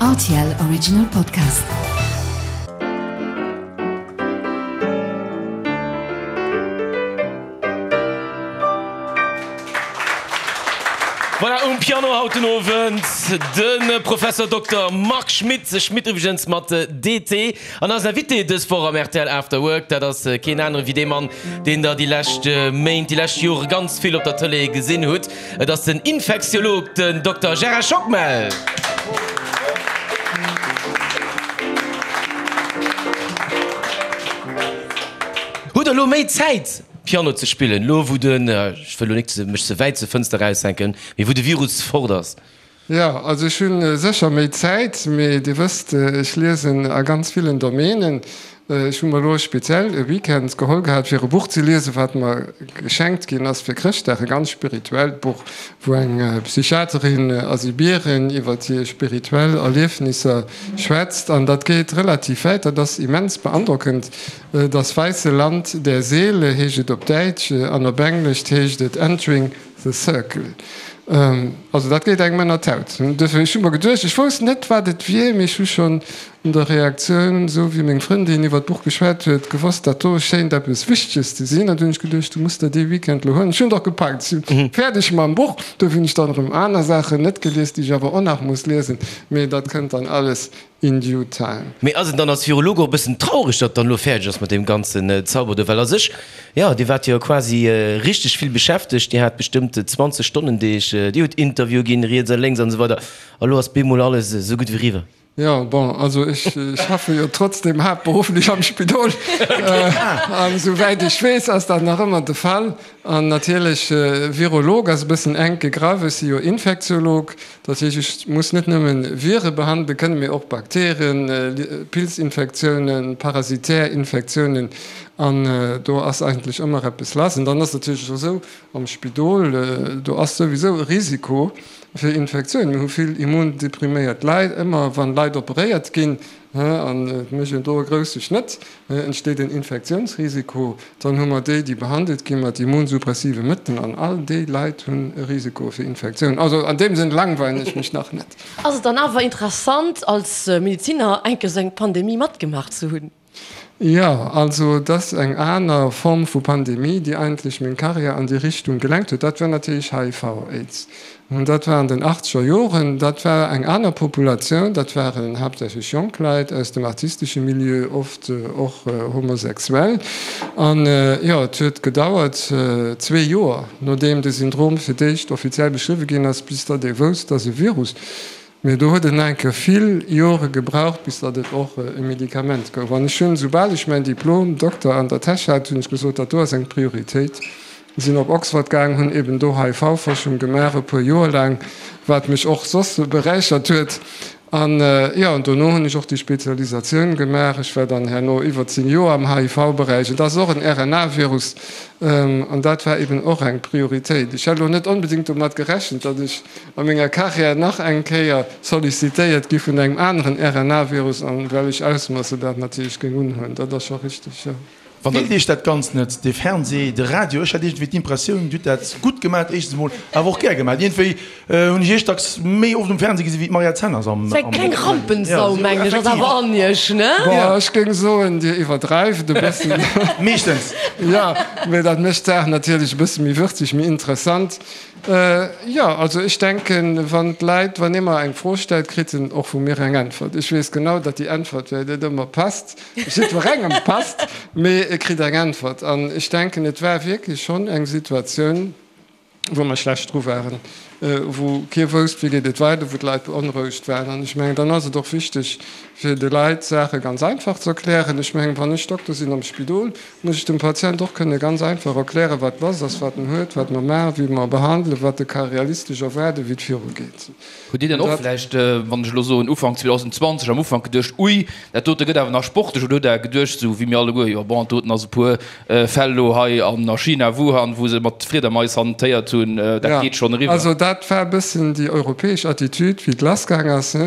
Rtl Original Podcast. Voilà, um Piano haut den Owend de Professor Dokter Marc Schmitt, Schmitt iwwregens mat DT. An eisen Invité dës Woch am rtl After Work, dat ass keen anere wéi dee Mann, deen der déi lescht Méint, déi lescht Jore ganz vill op der Tëlee gesinn hutt. Et ass den Infektiolog, den Dokter Gérard Schockmel. Hutt der elo méi Zäit Piano ze spillen, elo wou den, ech wëll elo nik mech ze wäit zur Fënster eraushänken, mee wou de Virus fort ass? Jo, also ech hu sécher méi Zäit, mee Dir wësst, ech liesen a ganz villen Domänen. Ech hu mer elo speziell e Weekend geholl gehat, fir e Buch ze liesen, wat mer geschenkt ginn ass fir Chrëschtdag, e ganz spirituellt Buch, wou eng Psychiaterin a Sibirien iwwer hir spirituell Erliefnisser schwätzt. An dat geet relativ wäit, dat ass immens beandrockend. Das weiße Land der Seele heescht et op Däitsch an op Englesch heescht et Entering the Circle. Also dat geet engem ënner d'Haut. Duerfir, ech hu mer geduecht, ech wousst net, wat et wier, mee ech hu schonn un der Reaktioun, esou wéi meng Frëndin iwwer d'Buch geschwat huet, gewosst, dat do schéint eppes Wichteges ze sinn. An du hunn ech geduecht, du muss der dee Weekend elo huelen. Ech hunn et och gepackt, ech si fäerdeg mam Buch. Duerfir hunn ech dann erëm aner Saachen net gelies, déi ech awer och nach muss liesen. Mee dat kënnt dann alles In due time. Mee ass et dann als Virolog och e bëssen traureg, datt dann elo fäerdeg ass mat deem ganzen Zauber do? Well a sech, jo, Dir waart jo quasi richteg vill beschäftegt, Dir hat bestëmmt 20 Stonnendeeg, Dir hutt Interviewe ginn, riets a lénks an esou weider, a lo ass bemol alles esou gutt wéi eriwwer. Jo, bon, also ech schaffe jo trotzdem haaptberufflech am Spidol an esouwäit ech weess, ass dat nach ëmmer de Fall. An natierlech, Virolog ass e bëssen enk gegraff, ech si jo Infektiolog, Dat heescht, ech muss net nëmme Vire behandele kënnen, mee och Bakterien, Pilzinfektiounen, parasitär Infektiounen. An do ass eigentlech ëmmer eppes lass. An dann ass et natierlech och esou, am Spidol, do ass souwisou e Risiko fir Infektiounen. Mir hu vill immundepriméiert Leit. Ëmmer wann Leit operéiert ginn, an et mécht een do e grousse Schnëtt, entsteet en Infektiounsrisiko. Dann hu mer déi, déi behandelt gi mat immunsuppressive Mëttelen, an all déi Leit hunn e Risiko fir Infektioun. Also an deem Sënn langweilen ech mech nach net. Ass et dann awer interessant, als Medeziner enke sou eng Pandemie matgemaach ze hunn? Jo, also et ass eng aner Form vu Pandemie, déi eigentlech meng Karriär an déi Richtung gelenkt huet. Dat war natierlech HIV-Aids. Dat war an den achtzeger Joren. Dat war eng aner Populatioun. Dat waren haaptsächlech jonk Leit aus dem artistesche Milieu, oft och homosexuell. An jo, et huet gedauert zwee Joer, nodeem de Syndrom fir d'éischt offiziell beschriwwe ginn ass, bis datt ee wousst, dass e Virus. Mee do huet et nach eng Kéier vill Jore gebraucht, bis datt et och e Medikament gouf. An ech hunn, soubal ech mäin Diplom Dokter an der Täsch hat, hunn ech gesot, dat do ass eng Prioritéit. Sinn op Oxford gaang, hunn eben do HIV-Forschung gemaach, e puer Joer laang, wat mech och soss beräichert huet. An jo, an dono hunn ech och déi Spezialisatioun gemaach. Ech war dann herno iwwer 10 Joer am HIV-Beräich. Et ass och en RNA-Virus an dat war eben och eng Prioritéit. Ech hätt elo net onbedéngt domat gerechent, datt ech a menger Karriär nach eng Kéier sollicitéiert gi vun engem aneren RNA-Virus an wellech Ausmoosse dat natierlech géing unhuelen. Dat ass scho richteg, jo. Feelt Iech dat Ganzt net, de Fernseh, de Radio? Ech hat iergendwéi d'Impressioun, Dir hutt dat gutt gemat, éischtens emol, awer och gär gemat. Iergendwéi hunn ech Iech dacks méi oft um Fernseh gesi wéi d'Mariette Zenners am. Sou eng kleng Rampensau, mengen ech, ass awer an Iech, ne? Bon, ech géing soen, Dir iwwerdreift e bëssen. Meeschtens. Jo, mee dat mécht d'Saach natierlech e bësse méi würzeg, méi interessant. Jo, also ech denken, wann d'Leit, wann ee mer eng Fro stellt, kritt en och vu mir eng Äntwert. Ech weess genau, datt déi Äntwert vläicht net ëmmer passt, jiddwerengem passt, mee e kritt eng Äntwert. An ech denken, et war wierklech schonn eng Situatioun, wou mer schlecht dru waren, wou kee wousst, wéi geet et weider, wou d'Leit beonrouegt waren. An ech mengen, dann ass et och wichteg, fir de Leit d'Saache ganz einfach ze erklären. Ech mengen, wann ech Dokter sinn am Spidol, muss ech dem Patient och kënne ganz einfach erklären, wat lass ass, wat en huet, wat mer maachen, wéi mer e behandelen, wat e ka realistesch erwaarden, wéi et virugeet. Hutt Dir dann och vläicht, wann ech elo soen Ufank 2020, am Ufank geduecht, ui, dat dote gëtt awer nach sportlech, oder hutt Der geduecht, esou wéi mir alleguer, jo bon, dat doten ass e puer Fäll elo hei an a China, Wuhan, wou se mat Friedermais hantéiert hunn, dat geet schonn eriwwer? Also dat war e bëssen déi europäesch Attitude, wéi et lassgaang ass.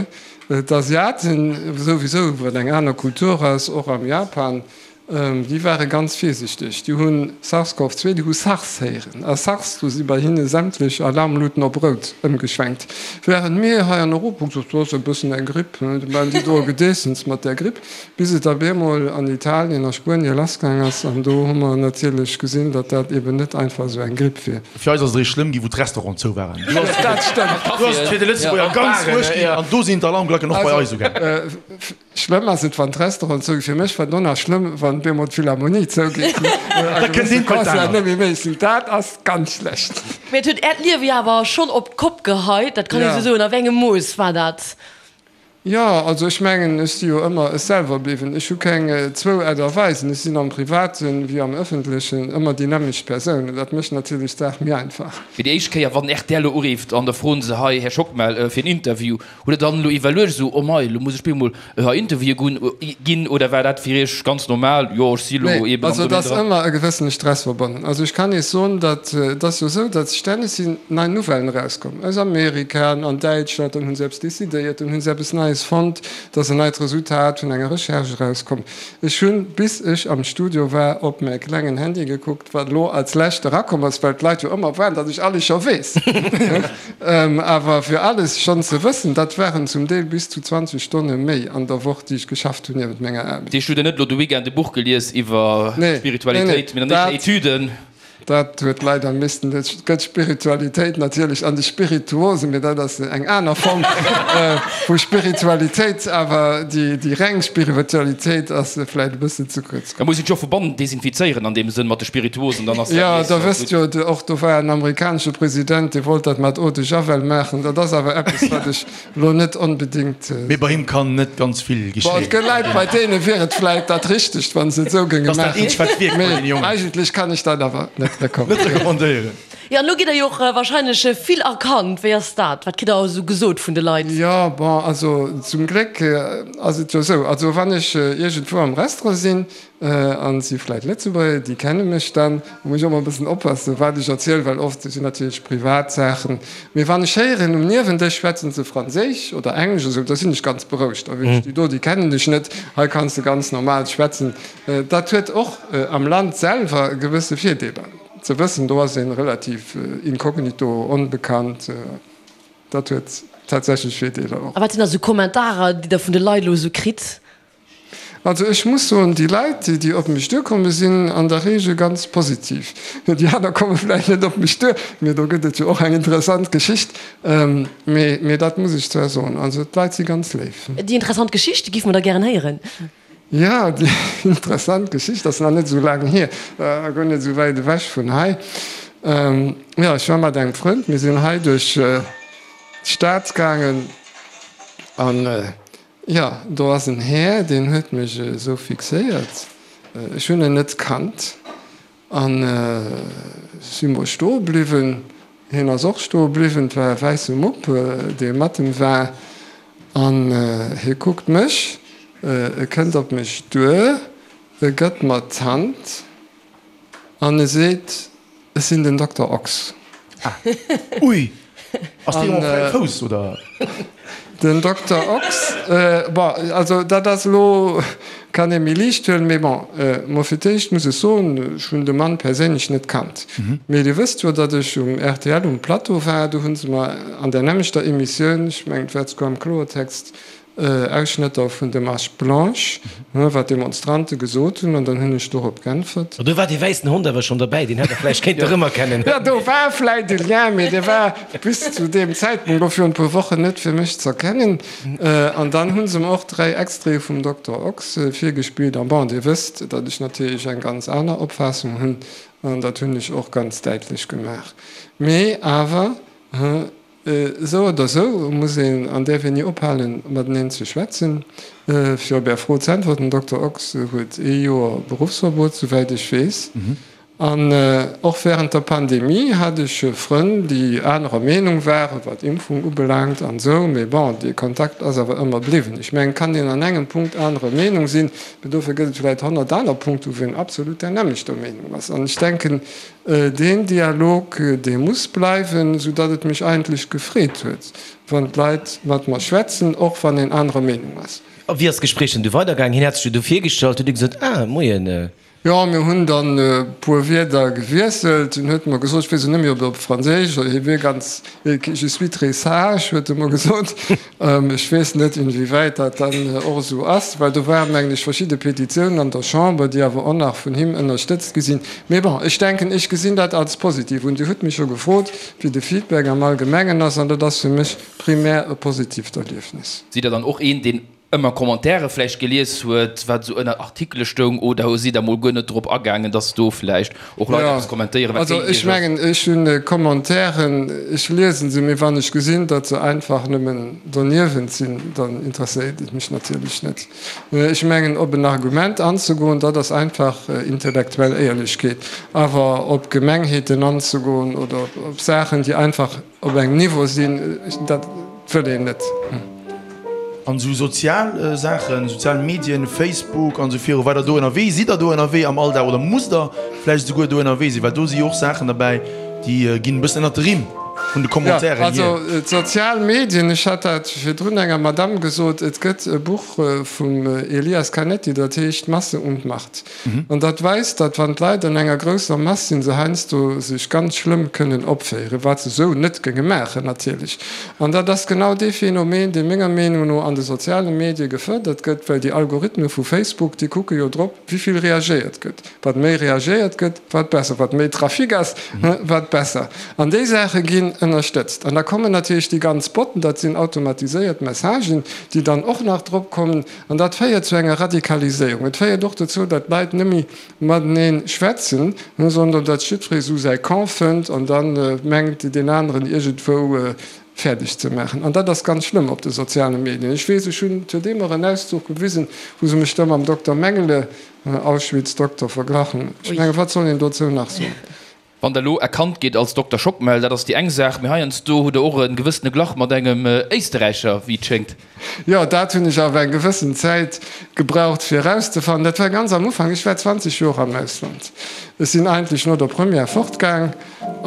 D'Asiaten souwisou, wat eng aner Kultur ass, och am Japan. Déi ware ganz virsichteg. Déi hu SARS-CoV-2, déi hu SARS héieren. A SARS, do si bei hinne sämtlech Alarmluten op rout ëmgeschwenkt. Wärend mir hei an Europa hu gesot, do ass e bëssen eng Gripp, do maachen déi do e Gedeessens mat där Gripp, bis et op eemol an Italien a Spuenie lassgaang ass. An do hu mer natierlech gesinn, datt dat eben net einfach esou eng Gripp wier. Fir eis ass et eréischt schlëmm ginn, wou d'Restauranten zou waren. Do ass et fir de Lëtzebuerger ganz uerg ginn an do sinn d'Alarmglacken och bei eis ugaangen. Schlëmm ass et wann d'Restauranten zouginn. Fir mech war et och nach schlëmm wann bemol d'Philharmonie zougeet a gewësse Concerten net méi méiglech sinn. Dat ass ganz schlecht. Mee et huet Äert Liewe jo awer schonn op d'Kopp geheit, dat kann ee sou soen. A wéi engem Mooss war dat? Jo, also ech mengen, ech si jo ëmmer ech selwer bliwwen. Ech hu keng zwou Aart a Weisen. Ech sinn am Privaten wéi am Ëffentlechen ëmmer déi nämmlecht Persoun. An dat mécht natierlech d'Saach méi einfach. Fir déi éischt Kéier, wann rtl elo urifft an da froen se, Hei, Här Schockmel, fir en Interview, Hutt der dann elo iwwerluecht esou, oh mei, elo muss ech bemol hei Interviewe ginn, oder war dat fir iech ganz normal, jo ech si elo Nee, eben am also et Domaine ass dran? ëmmer e gewëssene Stress verbonnen. Also ech kann Iech soen, datt et ass jo esou, datt stänneg sinn nei Nouvellen erauskomm aus Amerika an Däitschland, dann hu se eppes decidéiert, dann hu se eppes Neies fonnt, et ass en neit Resultat vun enger Recherche erauskomm. Ech hunn, bis ech am Studio war, op mäi klengen Handy gekuckt, wat elo als lescht erakomm ass, well d'Leit jo ëmmer waarden, datt ech alles scho weess. Awer fir alles schonn ze wëssen, dat waren zum Deel bis zu 20 Stonne méi an der Woch, déi ech geschafft hunn niewent menger Aarbecht. Deech hutt Der net elo de Weekend e Buch gelies iwwer Spiritualitéit, mee dann éischter Etüden? Dat huet leider missten, et gëtt Spiritualitéit natierlech an de Spirituosen, mee dat ass eng aner Form vu Spiritualitéit. Awer déi reng Spiritualitéit ass vläicht e bëssen ze kuerz komm. Da muss een sech och vu bannen desinfizéieren an deem Sënn mat de Spirituosen, dann ass dat Jo, nees der wësst gutt. jo, och do war en amerikanesche President, dee wollt dat mat Eau de Javel maachen. Dat ass awer eppes, wat ech Lo net onbedingt. Mee bei him kann net ganz vill geschéien. Bon, et gëtt Leit, bei deene wier et vläit dat Richtegt, wa se et esou géinge Dat ass dat maachen. eenzegt, wat wierkt bei deene Mee Jongen. eigentlech kann ech dat awer net Net recommandéieren. Jo, an elo gitt der jo och wahrscheinlech vill erkannt. Wéi ass dat? Wat kritt der esou gesot vun de Leit? Jo, bon, also zum Gléck ass et jo esou, also wann ech iergendwou am Restaurant sinn, An et si vläit Lëtzebuerger, déi kenne mech dann. Da muss ech och emmer e bëssen oppassen, wat ech erzielen, well oft sinn natierlech privat Saachen. Mee wann ech héieren, um Niewendësch schwätzen se Franséisch oder Englesch oder esou, da sinn ech ganz berouegt. Da weess ech, déi do, déi kennen dech net, hei kanns de ganz normal schwätzen. Dat huet och am Land selwer gewësse Virdeeler, ze wëssen, do ass ee relativ inkognito, onbekannt. Dat huet tatsächlech Virdeeler och. A wat sinn da sou Kommentarer, déi Der vun de Leit elo esou kritt? Also ech muss soen, déi Leit, déi op mech duerkomme sinn an der Regel ganz positiv. Déi aner komme vläicht net op mech duer, mee do gëtt et jo och eng interessant Geschicht. Mee, mee dat muss ech zwar soen, also d'Leit si ganz léif. Déi interessant Geschicht giff mer da gären héieren. Jo, déi interessant Geschicht ass nach net esou laang hier, a guer net esou wäit ewech vun hei. Jo, ech war mat engem Frënd, mir sinn hei duerch d'Stad gaangen an Jo, do ass en Här, deen huet mech esou fixéiert. Ech hunn en net kannt an si mol stoe bliwwen. Hien ass och stoe bliwwen. Et war e wäisse Mupp, dee mat em war. An hie kuckt mech, e kënnt op mech duer, e gëtt mer d'Hand an e seet, Ech sinn den Dokter Ochs. Ah, ui! Ass dee op fräiem Fouss, oder? Den Dokter Ochs, bon, also dat ass elo, kann ee méi liicht huelen, mee bon, mo fir d'éischt muss ech soen, ech hunn de Mann perséinlech net kannt. Mee Dir wësst jo, datt ech um rtl um Plateau war, do hu se mer an där nämmlechter Emissioun, ech mengen et war souguer am Kloertext, Ausschnëtter vun de Marche Blanche, wat d'Demonstrante gesot hunn, an dann hunn ech dorop g'äntwert. Do war dee wäissen Hond awer schonn derbäi, deen hätt der vläicht kéinte rëmerkennen. Jo, do war vläicht e Lien, mee dee war bis zu deem Zäitpunkt, elo virun e puer Wochen, net fir mech z'erkennen. An dann hu se mer och 3 Extraite vum Dokter Ochs virgespillt. An bon, Dir wësst, datt ech natierlech eng ganz aner Opfaassung hunn, an dat hunn ech och ganz däitlech gemaach. Mee awer, Esou oder esou muss een an däerf een ni ophalen, mateneen ze schwätzen. Fir op Är Fro z'äntwerten, Dokter Ochs huet ee Joer Beruffsverbot, souwäit ech weess. An och wärend der Pandemie hat ech Frënn, déi anerer Meenung waren, wat Impfung ubelaangt an esou. Mee bon, dee Kontakt ass awer ëmmer bliwwen. Ech mengen, et kann een an engem Punkt anerer Meenung sinn, mee dofir gëtt et vläicht 100 aner Punkte, wou een absolut där nämmlechter Meenung ass. An ech denken, Deen Dialog, dee muss bleiwen, sou datt et mech eigentlech gefreet huet, wann d'Leit mat mer schwätzen, och wann een anerer Meenung ass. A wéi ass d'Gespréich dann du weidergaangen? Hien hat sech jo du virgestallt, huet Dir gesot, Ah, moien. Jo, mir hunn dann e puer Wierder gewiesselt. En huet mer gesot, ech weess elo net méi, ob op Franséisch oder hie wier ganz, je suis très sage, huet e mer gesot. Ech weess net, inwiewäit dat dann och esou ass, well do waren, mengen ech, verschidde Petitiounen an der Chamber, déi awer och nach vun him ënnerstëtzt gi sinn. Mee bon, ech denken, ech gesinn dat als positiv un. Dir hutt mech jo gefrot, wéi de Feedback am Allgemengen ass, an dat ass fir mech primär e positiivt Erliefnis. Sidd Der dann och een, deen ëmmer Commentaire vläicht gelies huet, wat esou ënner Artikele stoung, oder sidd Der mol guer net drop agaangen, dass do vläicht och Leit eppes kommentéieren, wat géint Iech ass? Also ech mengen, ech hunn Commentairen, ech liesen se, mee wann ech gesinn, datt se einfach nëmmen doniewent sinn, dann interesséiert et mech natierlech net. Ech mengen, op en Argument anzegoen, dat ass einfach intellektuell Éierlechkeet. Awer op Gemengheeten anzegoen oder op Saachen, déi einfach op engem Niveau sinn, dat wëll een net. An esou sozial Saachen, sozial Medien, Facebook an esou viru weider do ënnerwee, sidd der do ënnerwee am Alldag oder musst der vläicht esouguer do ënnerwee sinn? Well do si jo och Saachen derbäi, déi ginn e bëssen ënnert de Rimm vun de Commentairen hier. Jo, also d'sozial Medien, ech hat dat virdrun enger Madamm gesot, et gëtt e Buch vum Elias Canetti, dat heescht Masse und Macht. An dat weist, datt wann d'Leit an enger grousser Mass sinn, se heiansdo sech ganz schlëmm kënnen opféieren, wat se esou net géinge maachen natierlech. An dat ass genau dee Phänomen, dee menger Meenung no an de soziale Medie gefërdert gëtt, well déi Algorithme vu Facebook, déi kucke jo drop, wéi vill reagéiert gëtt. Wat méi reagéiert gëtt, wat besser. Wat méi Trafic ass, wat besser. An déi Saache ginn ënnerstëtzt. An da kommen natierlech déi ganz Botten, dat sinn automatiséiert Messagen, déi dann och nach drop kommen. An dat féiert zu enger Radikaliséierung. Et féiert och dozou, datt d'Leit net méi matenee schwätzen, sondern datt jiddweree sou säi Camp fënnt an da mengt, deen aneren iergendwou fäerdeg ze maachen. An dat ass ganz schlëmm op de soziale Medien. Ech weess, ech hunn zudeem och en Auszuch gewisen, wou se mech da mam Dokter Mengele, Auschwitz-Dokter, verglach hunn. Ech mengen, wat soll een dozou nach soen? Wann der elo erkannt gitt als Dokter Schockmel, dat ass déi eng Saach, mee heiansdo hutt der och e gewëssene Glach mat engem Éisterräicher, wéi et schéngt. Jo, dat hunn ech awer eng gewëssen Zäit gebraucht fir erauszefannen. Dat war ganz am Ufank, ech war 20 Joer am Ausland. Ech sinn eigentlech no der Première fortgaang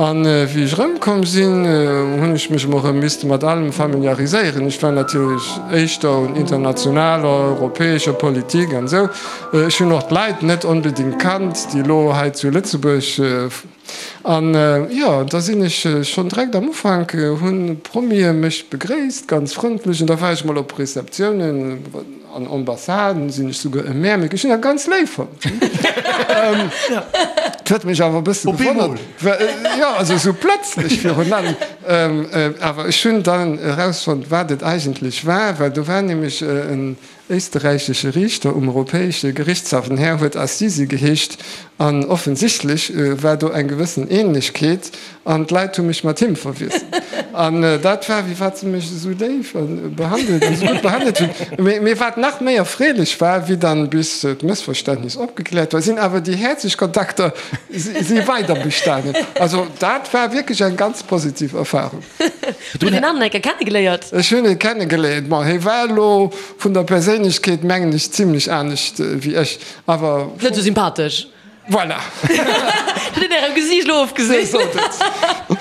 an wéi ech erëmkomm sinn, hunn ech mech emol erëm misste mat allem familiariséieren. Ech war natierlech éischter un internationaler, europäescher Politik an esou. Ech hunn och d'Leit net onbedingt kannt, déi elo hei zu Lëtzebuerg. An jo, da sinn ech schonn direkt am Ufank, hu Promie mech begréisst, ganz frëndlech. An da war ech mol op Receptiounen an Ambassaden, sinn ech souguer e Märmik. Ech hunn dat ganz léif fonnt. Et huet mech awer e bësse gewonnert. Jo, also esou plëtzlech virun allem. Awer ech hunn dann erausfonnt, wat et eigentlech war, well do war nämlech en éisterräichesche Riichter um Europäesche Gerichtshaff, den Här huet Assisi geheescht, an offensichtlech war do eng gewëssen Ähnlechkeet an d'Leit hu mech mat him verwiesselt. An dat war, wéi wat se mech esou léif behandelt an esou gutt behandelt hunn. Mee wat nach méi erfreelech war, wéi dann bis d'Mëssverständnis opgekläert war, sinn awer déi häerzlech Kontakter si weider bestanen. Also dat war wierklech eng ganz positiv Erfahrung. Hutt Der deen aneren eng Kéier kennegeléiert? Ech hunn e kennegeléiert. Bon, hie war elo vun der Perséinlechkeet, mengen ech, zimlech anescht wéi ech, awer. Net esou sympathesch. Voilà. Dat huet een Ärem Gesiicht elo ofgesinn. Dir sot et.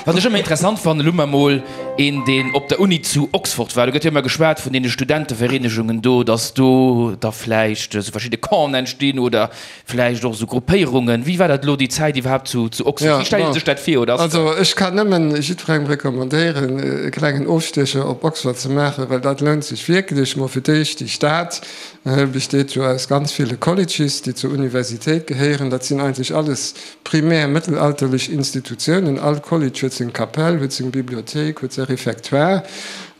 Wat ech ëmmer interessant fannen, elo mar mol een, deen op der Uni zu Oxford war, do gëtt jo ëmmer geschwat vun deene Studentevereenegungen do, datt do da vläicht esou verschidde Campen entstinn oder Vläicht och esou Gruppéierungen. Wéi war dat elo déi Zäit iwwerhaapt zu Oxford? Wéi stellt ee sech dat vir? Oder ass Also ech kann nëmmen jiddwerengem recommandéieren, e klengen Ofstiecher op Oxford ze maachen, well dat lount sech wierklech. Mol fir d'éischt, déi Stad besteet jo aus ganz ville Colleges, déi zur Universitéit gehéieren. Dat sinn eigentlech alles primär mëttelalterlech Institutiounen. All College huet seng Kapell, huet seng Bibliothéik, huet säi Réfectoire.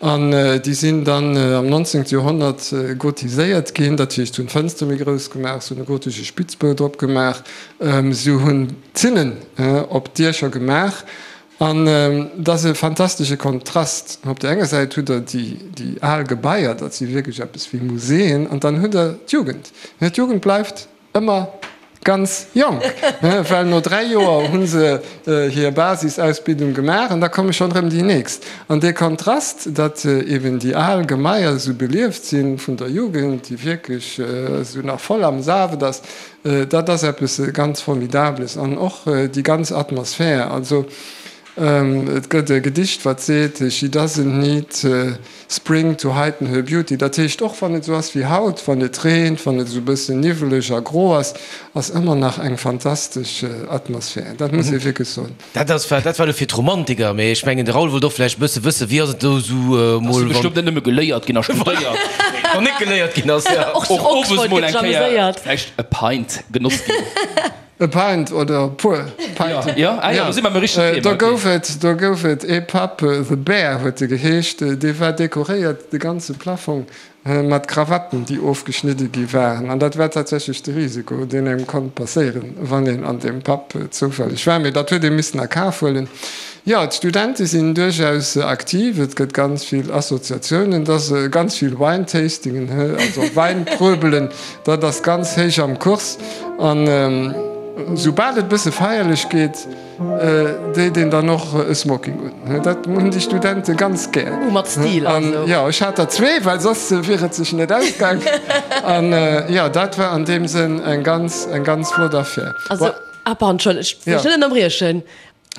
An déi sinn dann am 19. Joerhonnert gotiséiert ginn, dat heescht, se hunn d'Fënster méi grouss gemaach, se hunn e gotesche Spitzbou drop gemaach, se hunn Zinnen op d'Diecher gemaach. An et ass e fantastesche Kontrast. Op där enger Säit hutt Der déi al Gebaier, dat si wierklech eppes wéi Muséeën, an dann hutt Der d'Jugend. D'Jugend bleift Ëmmer ganz jonk, well no 3 Joer hu se hir Basisausbildung gemaach an da komme schonn erëm déi nächst. An dee Kontrast, datt eben déi al Gemaier esou belieft si vun der Jugend, déi wierklech esou nach voll am Saaft ass, dat ass eppes ganz Formidables. An och déi ganz Atmosphär. Also. Et gëtt e Gedicht, wat seet, She doesn't need spring to heighten her beauty. Dat heescht, och wann et esou ass wéi haut, wann et reent, wann et esou e bëssen niwweleg a gro ass, ass ëmmer nach eng fantastesch Atmosphär. Dat muss ee wierklech soen. Dat ass, dat war elo fir d'Romantiker, mee ech mengen, de Raoul wollt och vläicht e bësse wëssen, wéi ass et do esou mol, wann. Ass bestëmmt net nëmme geléiert ginn a studéiert. Wann net geléiert ginn ass, jo. Och zu Och owes Oxford mol gëtt eng Kéier ameséiert. vläicht e Pint genoss ginn. E Pint oder e puer Pinten. Jo, ah jo, do si mer am richtegen Thema. Do gouf et, do gouf et ee Pub, The Bear huet e geheescht, dee war dekoréiert, de ganze Plafong, mat Krawatten, déi ofgeschnidde gi waren. An dat war tatsächlech de Risiko, deen engem konnt passéieren, wann een an deem Pub zoufälleg war. Mee dat huet ee missen a Kaf huelen. Jo, d'Studente sinn duerchaus aktiv. Et gëtt ganz vill Associatiounen, et ass ganz vill Wine-Tastingen, also Wäinpröbelen. Dat ass ganz héich am Kurs. An soubal et bësse feierlech geet, deet een dann och e Smoking un. Dat hunn déi Studente ganz gär. Uh, mat Stil also. An jo, ech hat der zwee, well soss wier et sech net ausgaang. An jo, dat war an deem Sënn eng ganz, eng ganz flott Affär. Also, ah pardon, Entschëllegt, ech wëll dech net ënnerbriechen.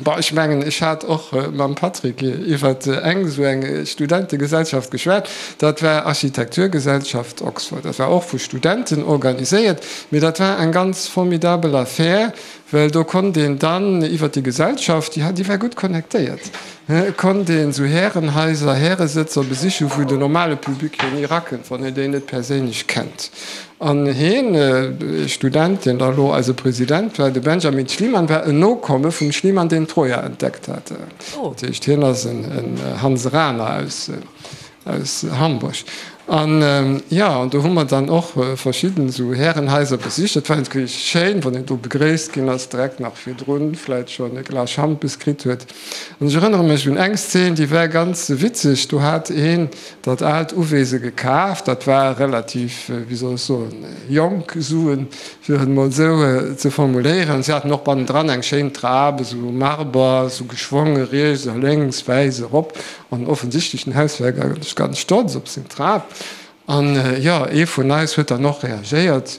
Bon, ech mengen, ech hat och mam Patrick iwwer eng esou eng Studentegesellschaft geschwat. Dat war Architekturgesellschaft Oxford. Dat war och vu Studenten organiséiert, mee dat war eng ganz formidabel Affär, well do konnt een dann iwwer déi Gesellschaft, déi déi war gutt connectéiert, konnt een esou Härenhaiser, Häresëtzer besichen, wou den normale Public jo ni erakënnt, wann een déi net perséinlech kennt. An hien, ee Student, deen da elo eise President war, de Benjamin Schliemann, war en Nokomme vum Schliemann, deen Troja entdeckt hat. Dat heescht, hien ass en Hanseraner aus Hamburg. An jo, an do hu mer dann och verschidden esou Härenhaiser besicht. Dat war natierlech schéin, wann een do begréisst ginn ass, direkt nach virdrun vläit schonn e Glas Schampes kritt huet. An ech erënnere mech un eng Szen, déi war ganz witzeg. Do hat een dat aalt Uwese gekaf, dat war relativ, wéi soll ech soen, jonk Suen, fir et emol esou ze formuléieren. Si haten och bannendran eng schéin Trap, esou Marber, esou geschwonge riets a lénks, wäiss erop. An offensichtlech den Hausherr war ganz stolz op seng Trap. An jo, ee vun eis huet dann och reagéiert.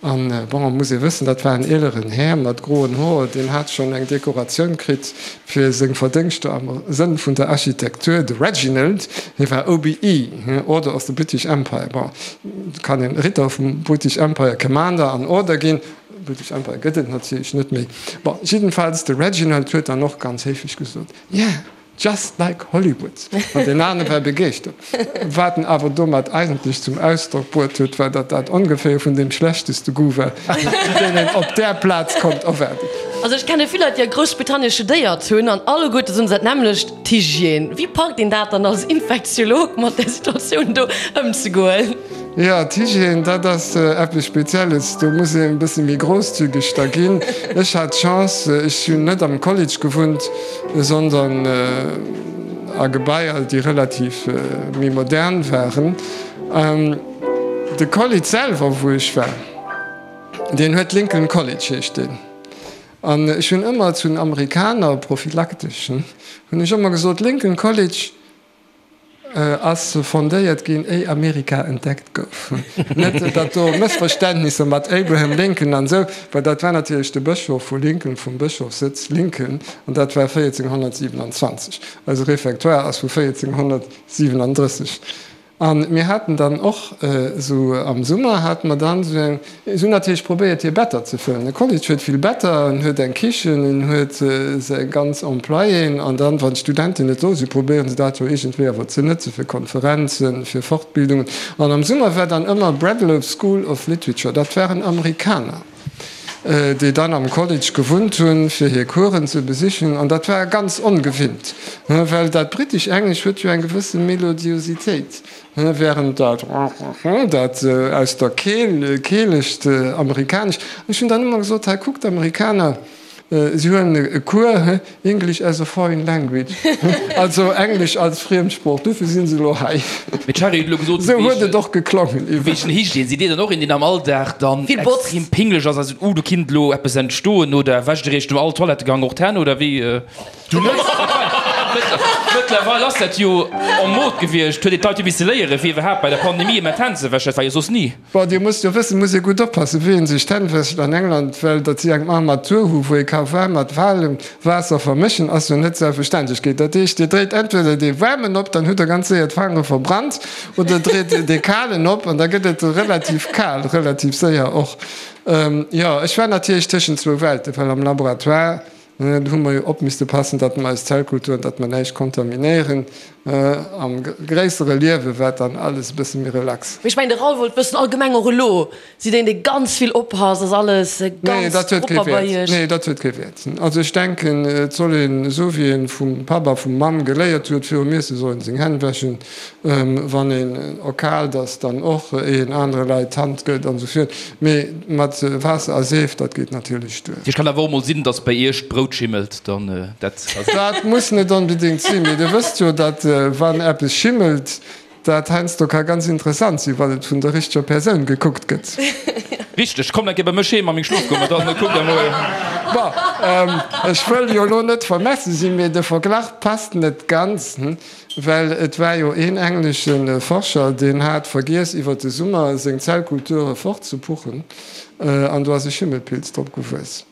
An, bon, muss ee wëssen, dat war en eeleren Här mat groen Hoer, deen hat schonn eng Dekoratioun kritt fir seng Verdéngschter am Sënn vun der Architektur, de Reginald, hie war OBE, Order of the British Empire. Bon, et kann een Ritter vum British Empire, Commander an Order ginn, British Empire gëtt et natierlech net méi. Bon, jiddenfalls, de Reginald huet dann och ganz héiflech gesot, Yeah! Just like Hollywood! An deen anere war begeeschtert. Wat en awer domat eigentlech zum Ausdrock bruet huet, war, datt dat ongeféier vun deem schlechteste Goût war, deen een op där Plaz konnt erwaarden. Also ech kenne vill Leit, déi a Groussbritannien studéiert hunn, an alleguerte soen se dat nämmlecht, d'Hygiène. Wéi packt een dat dann als Infektiolog mat där Situatioun do ëmzegoen? Jo, d'Hygiène, dat ass eppes Spezielles. Do muss een e bësse méi grousszügeg da ginn. Ech hat d'Chance, ech hunn net am College gewunnt, sondern a Gebaier, déi relativ méi modern waren. De College selwer, wou ech war, deen huet Lincoln College heescht deen. An ech hunn ëmmer zu den Amerikaner, prophylaktesch, hunn ech ëmmer gesot, Lincoln College, Ass fondéiert ginn, éi Amerika entdeckt gouf. Net datt do Mëssverständnisser mat Abraham Lincoln an esou, well dat war natierlech de Bëschof vu Lincoln, vum Bëschofssëtz Lincoln, an dat war 1427. Eise Réfectoire ass vu 1437. A mir haten dann och esou am Summer hate mer dann esou eng, Si hunn natierlech probéiert hir Better ze fëllen. De College huet vill Better, en huet eng Kichen, en huet seng ganz Employéen an dann, wann d'Studenten net do sinn, probéieren se dat jo iergendwéi awer ze nëtze fir Konferenzen, fir Fortbildungen. An am Summer war dann ëmmer Bradlow School of Literature, dat waren Amerikaner, déi dann am College gewunnt hunn, fir hir Coursen ze besichen. An dat war ganz ongewinnt, well dat britesch Englesch huet jo eng gewësse Melodiositéit. Während dat dat aus der Keel, keelegt Amerikanesch, ech hunn dann ëmmer gesot, hei kuckt, d'Amerikaner, si huelen e Cours English as a foreign language, also Englesch als Friemsprooch, dofir si se elo hei. Mee d'Shari huet elo gesot, Esou huet et och geklongen iwwer. Wéi Hygiène, sidd Dir dann och een, deen am Alldag dann extrem pinglech ass a seet, uh, do kinnt elo eppes entstoen, oder wäscht Dir Iech no all Toilettegang och d'Hänn, oder wéi? Du net? Mëttlerweil ass dat jo en mode gewiescht, huet een d'Leit jo misse léieren, fir iwwerhaapt bei der Pandemie ëmmer d'Hänn ze wäschen. Dat war jo soss ni. Bon, Dir musst jo wëssen, muss ee gutt oppassen, wéi ee sech d'Hänn wäscht an England, well datt si eng Armatur hu wou ee ka waarm mat walem Waasser vermëschen, ass jo net Selbstverständlechkeet. Dat heescht, Dir dréit entweder dee waarmen op, dann hutt Der ganz séier d'Fangere verbrannt, oder dréit dee kalen op an da gëtt et relativ kal, relativ séier och. Jo, ech war natierlech tëschent zwou Welten, well am Laboratoire, do hu mer jo op misste passen, datt mer eis Zellkulturen, datt mer näischt kontaminéieren. Am gréissere Liewe war dann alles e bësse méi relax. Mee ech mengen, de Raoul wollt wëssen, allgemeng och elo, Sidd een dee ganz vill oppasst? Ass alles ganz propper bei Iech? Nee, dat huet kee Wäert. Also ech denken, et soll een, esou wéi een vum Papp a vum Mamm geléiert huet, virum Iesse soll een seng Hänn wäschen, wann een erkaalt ass, dann och, éier een anere Leit d'Hand gëtt an esou virt. Mee mat Waasser a Seef, dat geet natierlech duer. Et kann awer och mol sinn, dass bei Iech d'Brout schimmelt, dann dat. Dat muss net onbedéngt sinn, mee Dir wësst jo, datt wann eppes schimmelt, Dat heiansdo ka ganz interessant sinn, wann et vun der richteger Persoun gekuckt gëtt. Richteg, komm eng Kéier bei mech heem a meng Schlofkummer, dann kuckt der mol. Bon, ech wëll jo elo net vermessen sinn, mee de Verglach passt net ganz, well et war jo een englesche Forscher, deen hat vergiess iwwer de Summer seng Zellkulture fortzepuchen an do ass e Schimmelpilz drop gewuess.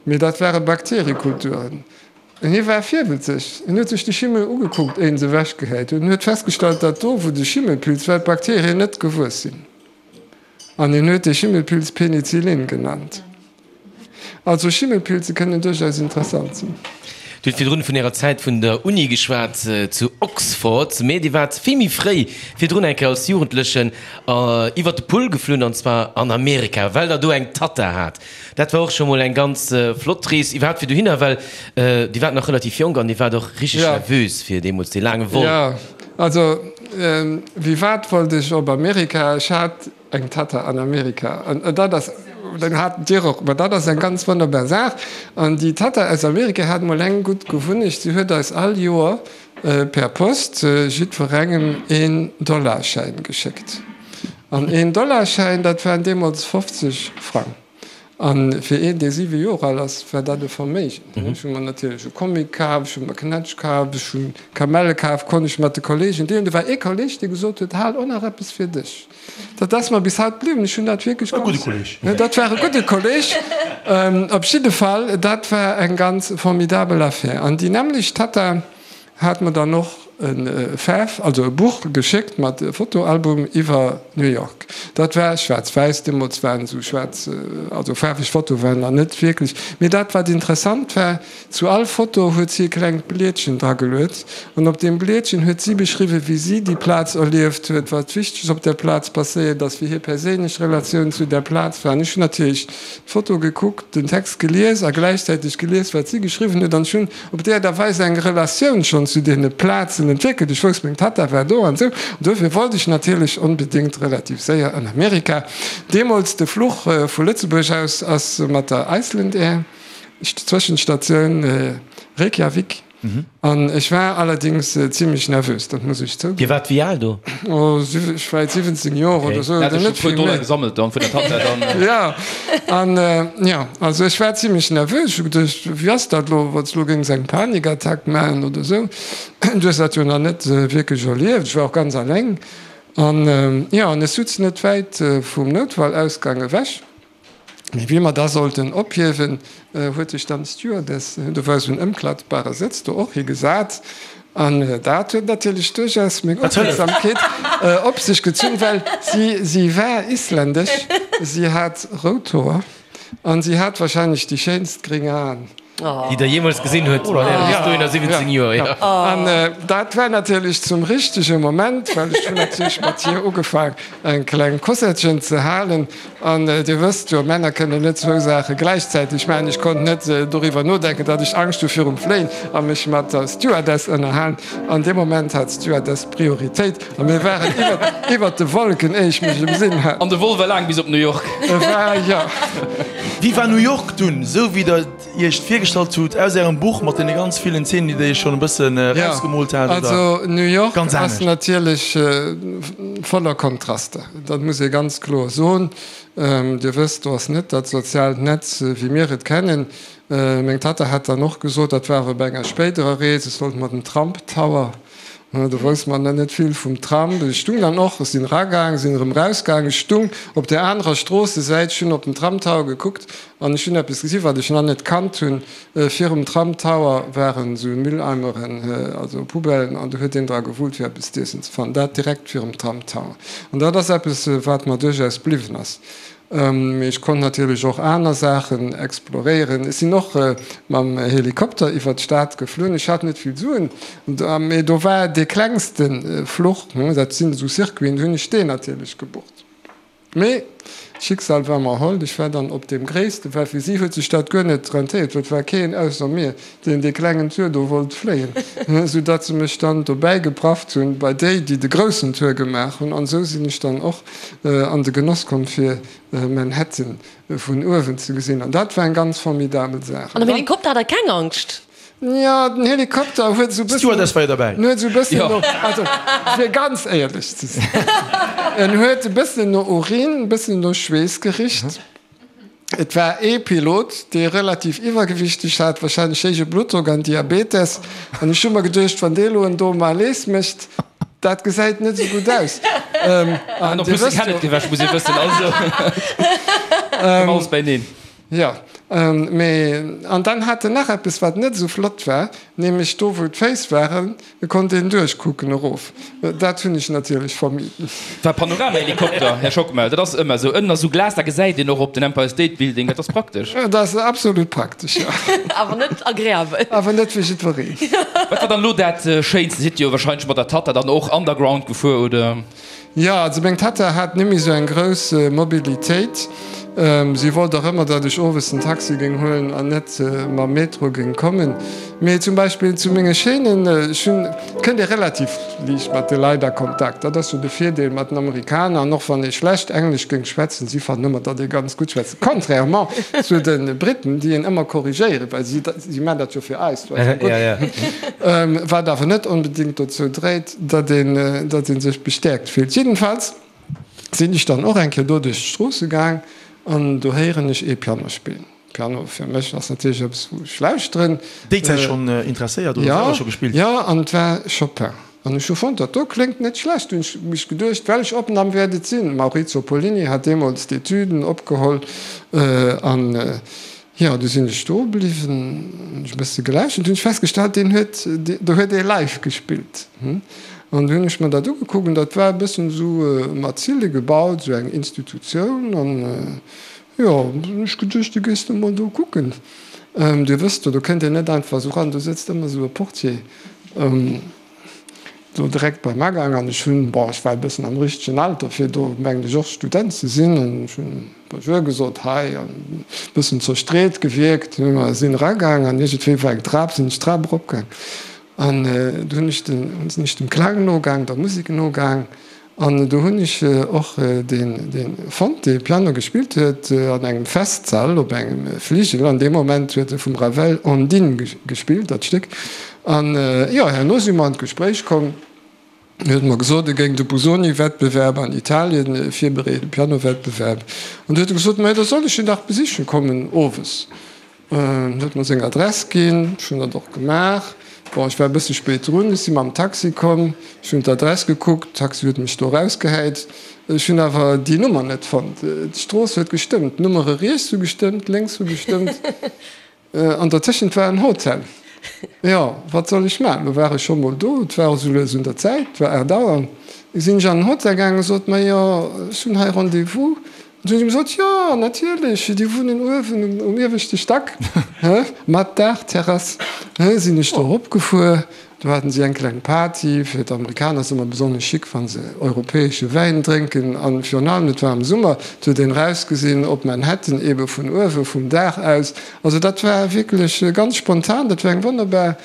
Mee dat ware Bakteriekulturen. Hie war virwëtzeg. En huet sech de Schimmel ugekuckt, éier en se ewechgehäit huet, en huet festgestallt, datt do, wou de Schimmelpilz war, d'Bakterien net gewuess sinn. An hien huet dee Schimmelpilz Penicillin genannt. Also Schimmelpilze kënnen duerchaus interessant sinn. Dir hutt virdrun vun Ärer Zäit vun der Uni geschwat zu Oxford, mee Dir waart vill méi fréi virdrun eng Kéier als Jugendlechen iwwer de Pull geflunn, an zwar an Amerika, well Der do eng Tatta hat. Dat war och scho mol eng ganz flott Rees iwwerhaapt fir dohinner, well Dir waart nach relativ jonk an Dir waart och richteg nervös fir deemools dee laange Vol. Jo, also wéi wat wollt ech op Amerika? Ech hat eng Tatta an Amerika an dat ass, dann hat Dir och, ma dat ass eng ganz wonnerbar Saach. An déi Tatta aus Amerika hat mol eng gutt Gewunnecht, si huet eis all Joer per Post jiddwerengem een Dollarschäin geschéckt. An een Dollarschäin, dat waren deemools 50 Frang. A fir een, dee siwe Joer al ass, war dat e Verméigen. Ech hu mer natierlech e Comic kaf, ech hu mer Knätsch kaf, ech hu Kamelle kaf, konnt ech mat de Kolleegen deelen. Do war ee Kolleeg, dee gesot huet, Hal och nach eppes fir dech. Dat ass mer bis haut bliwwen. Ech hunn dat wierklech ganz. Dat war e gudde Kolleeg. Op jidde Fall, dat war eng ganz formidabel Affär. An déi nämmlecht Tatta Hat mer dann och e Faarf, also e Buch geschéckt mat Fotoalbum iwwer New York. Dat war schwaarz-wäiss, deemools waren esou schwaarz, also faarweg Fotoe waren nach net wierklech. Mee dat wat interessant war, zu all Foto huet si e klengt Blietchen drageluet an op deem Blietchen huet si beschriwwen, wéi si déi Plaz erlieft huet, wat Wichteges op där Plaz passéiert ass, wéi hir perséinlech Relatioun zu där Plaz war. An ech hunn natierlech d'Foto gekuckt, den Text gelies a gläichzäiteg gelies, wat si geschriwwen huet an ech hunn op déi Aart a Weis eng Relatioun schonn zu deene Plazen entwéckelt. Ech wousst, meng Tatta war do an esou. An duerfir wollt ech natierlech onbedéngt relativ séier an Amerika. Deemools de Fluch vu Lëtzebuerg aus ass mat der Iceland Air, Zwëschenstatioun Reykjavik. An ech war allerdéngs zimlech nervös, dat muss ech zouginn. Dir waart wéi al do? Oh, ech war 17 Joer oder esou, oder net vill méi. Gesammelt dann vun der Tatta dann. Ja, an jo, also ech war zimlech nervös. Ech hu geduecht, wéi ass dat elo, wann s elo géings eng Panikattack maachen oder esou. Du hues dat jo nach net wierklech erlieft. Ech war och ganz alleng. An jo, an ech sutz net wäit vum Noutfallausgang ewech. Mee wéi mer da sollten ophiewen, huet sech dann d'Stewardess, do war esou en ëmklappbare Sëtz, do och higesat. An dat huet natierlech duerchaus meng Opmierksamkeet op sech gezunn, well si, si war isländesch, si hat rout Hoer an si hat wahrscheinlech déi schéinst gréng Aen. Déi der jeemools gesinn huet mat äre bis dohinner 17 Joer, jo. An dat war natierlech zum richtege Moment, well ech hunn natierlech mat hir ugefaang eng kleng Kosettchen ze halen. An Dir wësst jo, Männer kënnen net zwou Saache gläichzäiteg maachen. Ech konnt net doriwwer nodenken, datt ech Angscht hu virum Fléien a mech mat der Stewardess ënnerhalen. An deem Moment hat d'Stewardess Prioritéit a mir waren iwwert de Wolken, éier ech mech emsinn hat. An de Vol war laang bis op New York. E war, jo. Wéi war New York dunn, esou wéi der et iech virgestallt hutt aus ärem Buch mat deene ganz villen Zeenen, déi der iech schonn e bëssen erausgemoolt hat, oder Also New York ganz ass anescht? natierlech voller Kontraster, dat muss ee ganz kloer soen. Dir wësst, do ass net dat soziaalt Netz, wéi mir et kennen. Meng Tatta hat dann och gesot, dat war awer bei enger spéiderer Rees, ech sollt mer den Trump Tower, do wousst mer net vill vum Trump, ech stung dann och, ech sinn eragaang, sinn erëm erausgaang, ech stung op där anerer Stroossesäit, ech hunn op den Trump Tower gekuckt an ech hunn eppes gesi wat ech nach net kannt hunn, virum Trump Tower waren esou Mülleimeren, also Poubellen, an do huet een dra gewullt fir eppes z'iessen ze fannen, dat direkt virum Trump Tower. An dat ass eppes wat mer duerchaus bliwwen ass. Mee ech konnt natierlech och aner Saachen exploréieren. Ech sinn och mam Helikopter iwwer d'Stad geflunn. Ech hat net vill Suen, mee do war dee klengste Fluch, dat sinn esou Circuiten, du hunn ech deen natierlech gebucht. Mee d'Schicksal war mer hold, ech war dann op deem gréissten, well fir si huet sech dat guer net rentéiert, well et war keen ausser mir, deen dee klengen Tour do wollt fléien, esou datt se mech dann dobäi geprafft hunn bei déi, déi de groussen Tour gemaach hunn. An esou sinn ech dann och an de Genoss komm fir Manhattan vun uewen ze gesinn. An dat war eng ganz formidabel Saach. An am Helikopter hat der keng Angscht? Jo, den Helikopter huet esou bëssen, D'Stewardess war jo derbäi. En huet esou bëssen no, also fir ganz éierlech ze sinn, en huet e bëssen no Urin, e bëssen no Schweess gericht. Et war ee Pilot, dee relativ iwwergewichteg hat, wahrscheinlech héije Bluttdrock an Diabetes. An ech hu mer geduecht, wann dee lo en do Malaise mécht, dat gesäit net esou gutt aus. An en plus de Kenneth gewäsch, muss ee wëssen. Also koum alles beineen. Jo, mee an dann hat en nach eppes, wat net esou flott war, nämlech do, wou d'Féiss waren, konnt een duerchkucken erof. Dat hunn ech natierlech vermiden. War Panoramahelikopter, Här Schockmel, dat ass ëmmer esou. Ënnen ass esou Glas, da gesäit een och op den Empire State Building, dat ass praktesch. Dat ass absolut praktesch, jo. Awer net agreabel. Awer net fir jiddwereen. Wat war dann elo dat Schéinste? Sidd Dir jo wahrscheinlech mat der Tatta dann och underground gefuer, oder? Jo, also meng Tatta hat nemmi sou eng grouss Mobilitéit. Si wollt och ëmmer, datt ech owes den Taxi géing huelen an net mam Metro géing kommen. Mee zum Beispill zu menge Chaînen, ech hunn, et kënnt ee relativ liicht mat de Leit a Kontakt. Dat ass jo de Virdeel mat den Amerikaner. An och wann ee schlecht Englesch géing schwätzen, si fannen ëmmer, datt ee ganz gutt schwätzt. Contrairement zu de Briten, déi een ëmmer korrigéieren, well si, si maachen dat jo fir eis, wat awer net onbedéngt dozou dréit, datt een, datt ee sech bestäerkt fillt. Jiddenfalls sinn ech dann och eng Kéier do duerch d'Stroosse gaang an do héieren ech ee Piano spillen. Piano fir mech ass natierlech eppes, wou ech lauschteren. Déi Zäit schonn interesséiert oder selwer scho gespillt? Jo, an et war Chopin. An ech hu fonnt, dat do kléngt net schlecht. Hunn ech mech geduecht, welch Opnamm wäert et sinn? Maurizio Pollini hat deemools d'Etüden opgeholl an Jo, du sinn ech do bliwwen, hunn ech e bësse gelauschtert, hunn ech festgestallt, deen huet, do huet ee live gespillt. An du hunn ech mer dat ugekuckt an dat war e bëssen esou mat Zille gebaut, esou eng Institutioun. An jo, du hunn ech geduecht, du gees du mol do kucken. Dir wësst jo, do kënnt een net einfach esou ran, do sëtzt ëmmer esou e Portier. Do direkt beim Agang an ech hunn, bon, ech war e bëssen am richtegen Alter fir do, mengen ech, och Student ze sinn, an ech hunn Bonjour gesot, hi, an e bëssen zerstreet gewierkt. Mer sinn eragaang an iergendwéi war eng Trap, sinn ech d'Trap eropgaang an do hunn ech den, sinn ech dem Klang nogaang, der Musek nogaang an do hunn ech och deen, deen fonnt, dee Piano gespillt huet an engem Festsall op engem Fligel. An deem Moment huet e vum Ravel Ondine gespillt, dat Stéck. An jo, herno si mer an d'Gespréich komm. En huet mer gesot, e géing de Busoni-Wettbewerb an Italien virbereeden, Piano-Wettbewerb. An du huet e gesot, Mä da soll ech en dach besichen kommen owes. En huet mer seng Adress ginn, ech hunn dat och gemaach. Bon, ech war e bësse spéit drun, ech si mam Taxi komm, ech hunn d'Adress gekuckt, Taxi huet mech do erausgehäit. Ech hunn awer déi Nummer net fonnt. D'Strooss huet gestëmmt, d'Nummere riets hu gestëmmt, lénks hu gestëmmt. An dertëschent war en Hotel. Jo, wat soll ech maachen? Lo war ech scho mol do, et war esou lues un der Zäit, et war 8 Auer. Sinn ech an den Hotel gaangen a sot, Majo, ech hunn hei Rendez-vous. An du hunn si gesot, Jo, natierlech, déi wunnen uewen um ieweschte Stack, mat Daachterrass. Sinn ech do eropgefuer, do haten si eng kleng Party. Fir d'Amerikaner ass ëmmer besonnesch chic, wa se europäesche Wäin drénken. A virun allem, et war am Summer, et huet een erausgesinn op Manhattan, eebe vun uewe vum Daach aus. Also dat war wierklech ganz spontan, dat war eng wonnerbar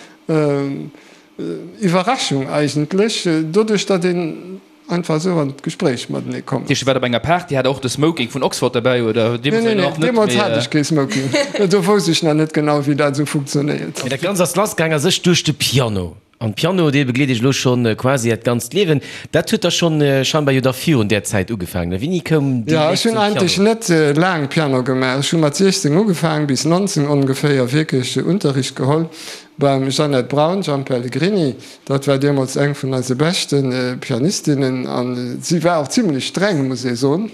Iwwerraschung eigentlech, doduerch datt een. Einfach esou an d'Gespréich matenee kommen. Dir waart op enger Party, hat der och de Smoking vun Oxford derbäi oder? Nee, nee, nee, deemools hat ech kee Smoking. Do wousst ech nach net genau, wéi dat esou funktionéiert. Mee dat Ganzt ass lassgaang a sech duerch de Piano. An Piano, dee begleet iech elo schonn quasi äert ganzt Liewen. Dat huet da schonn scheinbar jo da virun där Zäit ugefaangen, ne? Wéini koum déi Jo, Léift ech hunn zum eigentlech Piano? net laang Piano gemaach. Ech hu mat 16 ugefaang, bis 19 ongeféier wierklech Unterricht geholl beim Jeannette Braun, Jean Pellegrini. Dat war deemools eng vun eise beschte Pianistinnen an si war och zimlech streng, muss ee soen.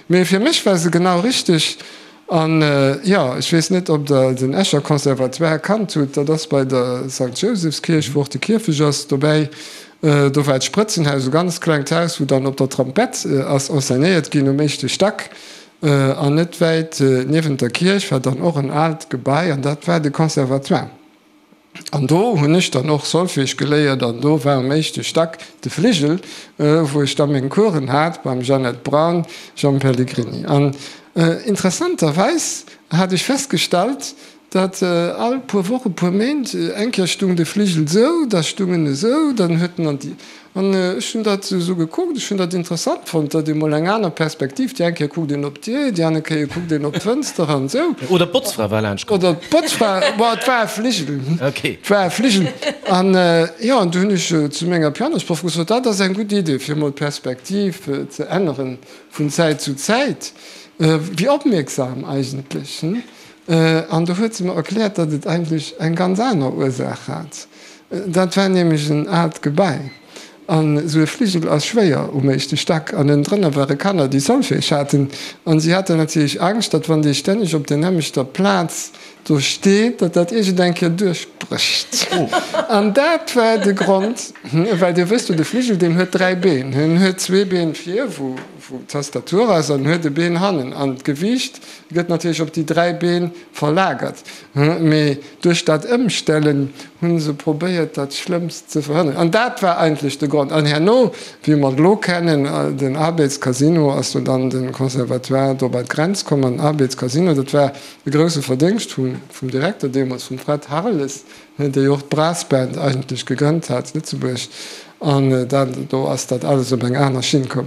Mee fir mech war se genau richteg. An jo, ech weess net, ob Der den Escher Conservatoire kannt hutt. Dat ass bei der Sankt Jousefskierch, wou och de Kierfech ass, dobäi. Do war d'Sprëtzenhaus, e ganz klengt Haus, wou dann op der Trompett ass enseignéiert ginn um éischte Stack. An net wäit niewent der Kierch war dann och en aalt Gebai an dat war de Conservatoire. An do hunn ech dann och Solfège geléiert an do war um éischte Stack de Fligel, wou ech da meng Coursen hat beim Jeannette Braun, Jean Pellegrini. An interessanterweis hat ech festgestallt, datt all puer Wochen, puer Méint eng Kéier stung de Fligel esou, da stung en esou, dann huet en an déi. An ech hunn dat esou gekuckt, ech hunn dat interessant fonnt, datt ee mol eng aner Perspektiv, déi eng Kéier kuckt een op d'Dier, déi aner Kéier kuckt een op d'Fënster an esou. Oder d'Botzfra war laanscht komm. Oder d'Botzfra, bon, et war e Fligel, et war e Fligel. An jo, an du hunn ech zu menger Pianosproff gesot, dat ass eng gutt Idee, fir mol d'Perspektiv ze änneren vun Zäit zu Zäit. Wéi opmierksam eigentlech, hm? An du huet se mer erkläert, datt et eigentlech eng ganz aner Ursaach hat. Dat war nämlech en aalt Gebai an esou e Fligel ass schwéier um éischte Stack an ënnendrënner ware Kanner, déi Solfège haten an si haten natierlech Angscht, datt wann dee stänneg op der nämmlechter Plaz do steet, datt dat iergend eng Kéier duerchbrécht. An dat war de Grond, well Dir wësst jo, de Fligel, deen huet 3 Been. En huet zwee Been vir, wou d'Tastatur ass, an en huet e Been hannen an d'Gewiicht gëtt natierlech op déi 3 Been verlagert. Mee duerch dat Ëmstellen hu se probéiert, dat Schlëmmst ze verhënneren. An dat war eigentlech de Grond. An herno, wéi mer et elo kennen, den Arbeds Casino, ass do dann de Conservatoire do bei d'Grenz komm. An den Arbeds Casino, dat war e grousse Verdéngscht vum Direkter deemools, vum Fred Harles, dee jo och d'Brassband eigentlech gegrënnt hat zu Lëtzebuerg. An dat, do ass dat alles op eng aner Schinn komm.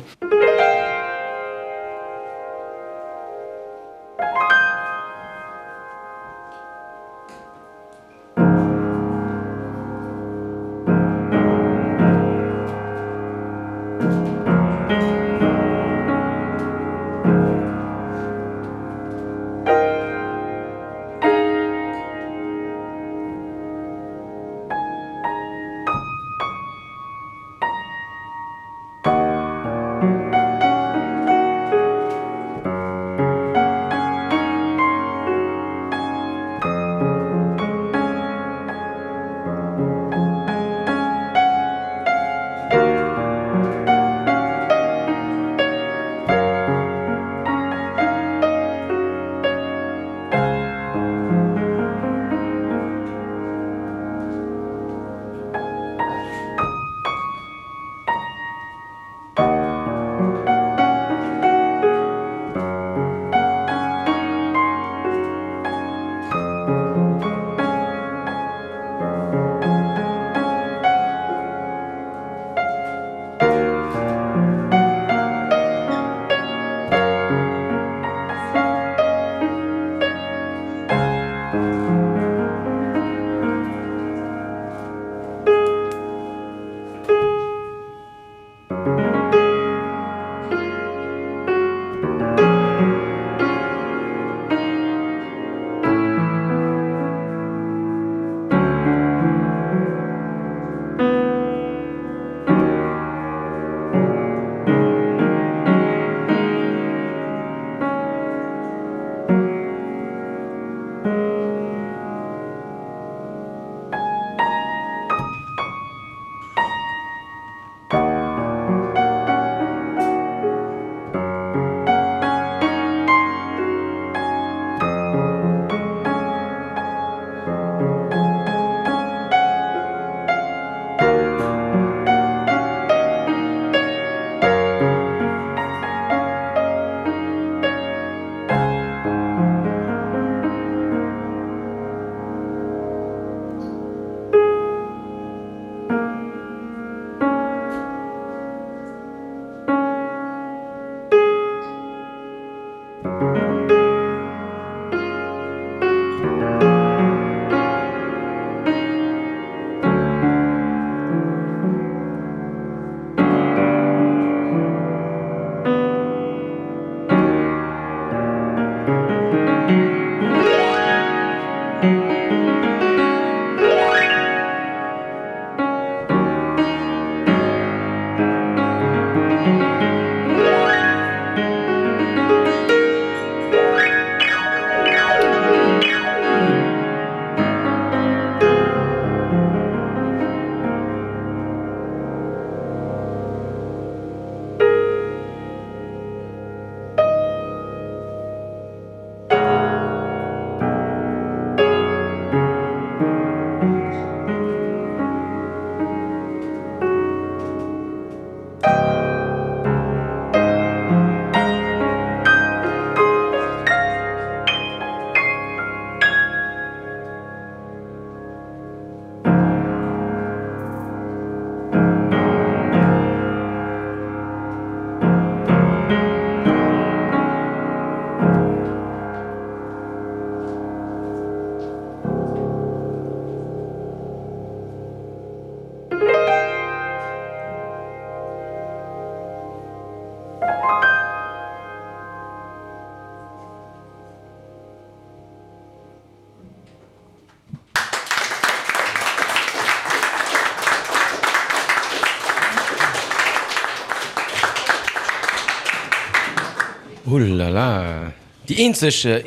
Oulala, déi eenzeg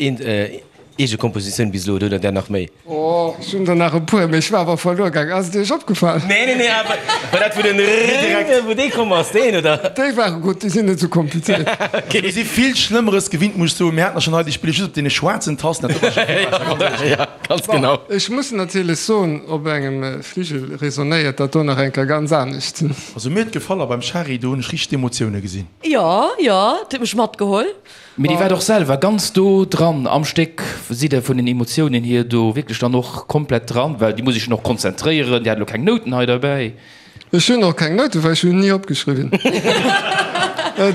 eege Kompositioun bis elo, oder hutt Der där nach méi? Oh, ech hunn der nach e puer, mee ech war awer verluer gaang. Ass et Iech opgefall? Nee, nee, nee, awer war dat wou den Rrrr, wou dee komm ass, deen, oder? Déi ware gutt, déi sinn net esou komplizéiert. Mir si vill Schlëmmeres gewinnt, muss ech soen. Mir haten der schonn hei, déi spille just op deene schwaarzen Tasten. Dat do war scho vill besser, ganz éierlech. Ja, ganz genau. Bon, ech muss natierlech soen, op engem Fligel resonéiert dat do nach eng Kéier ganz anescht. Also mir huet gefall a beim Shari, do hunn ech richteg d'Emotioune gesinn. Jo, jo, et huet mech matgeholl. Mee Dir waart och selwer ganz do dran am Stéck. Sidd Der vun den Emotiounen hier do wierklech dann och komplett dran? Well Dir musst Iech jo och konzentréieren, Dir hat elo keng Nouten hei derbäi. Ech hunn och keng Nouten, well ech hunn ni opgeschriwwen.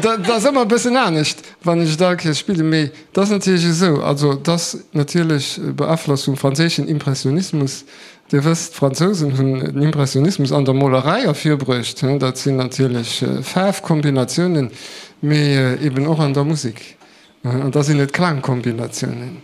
Dat ass ëmmer e bëssen anescht, wann ech et all Kéiers spillen. Mee et ass natierlech esou, also et ass natierlech beaflosst vum franséischen Impressionismus. Dir wësst, d'Fransousen hunn den Impressionismus an der Molerei ervirbruecht. Dat sinn natierlech Faarfkombinatiounen, mee eben och an der Musek. An da sinn et Klangkombinatiounen.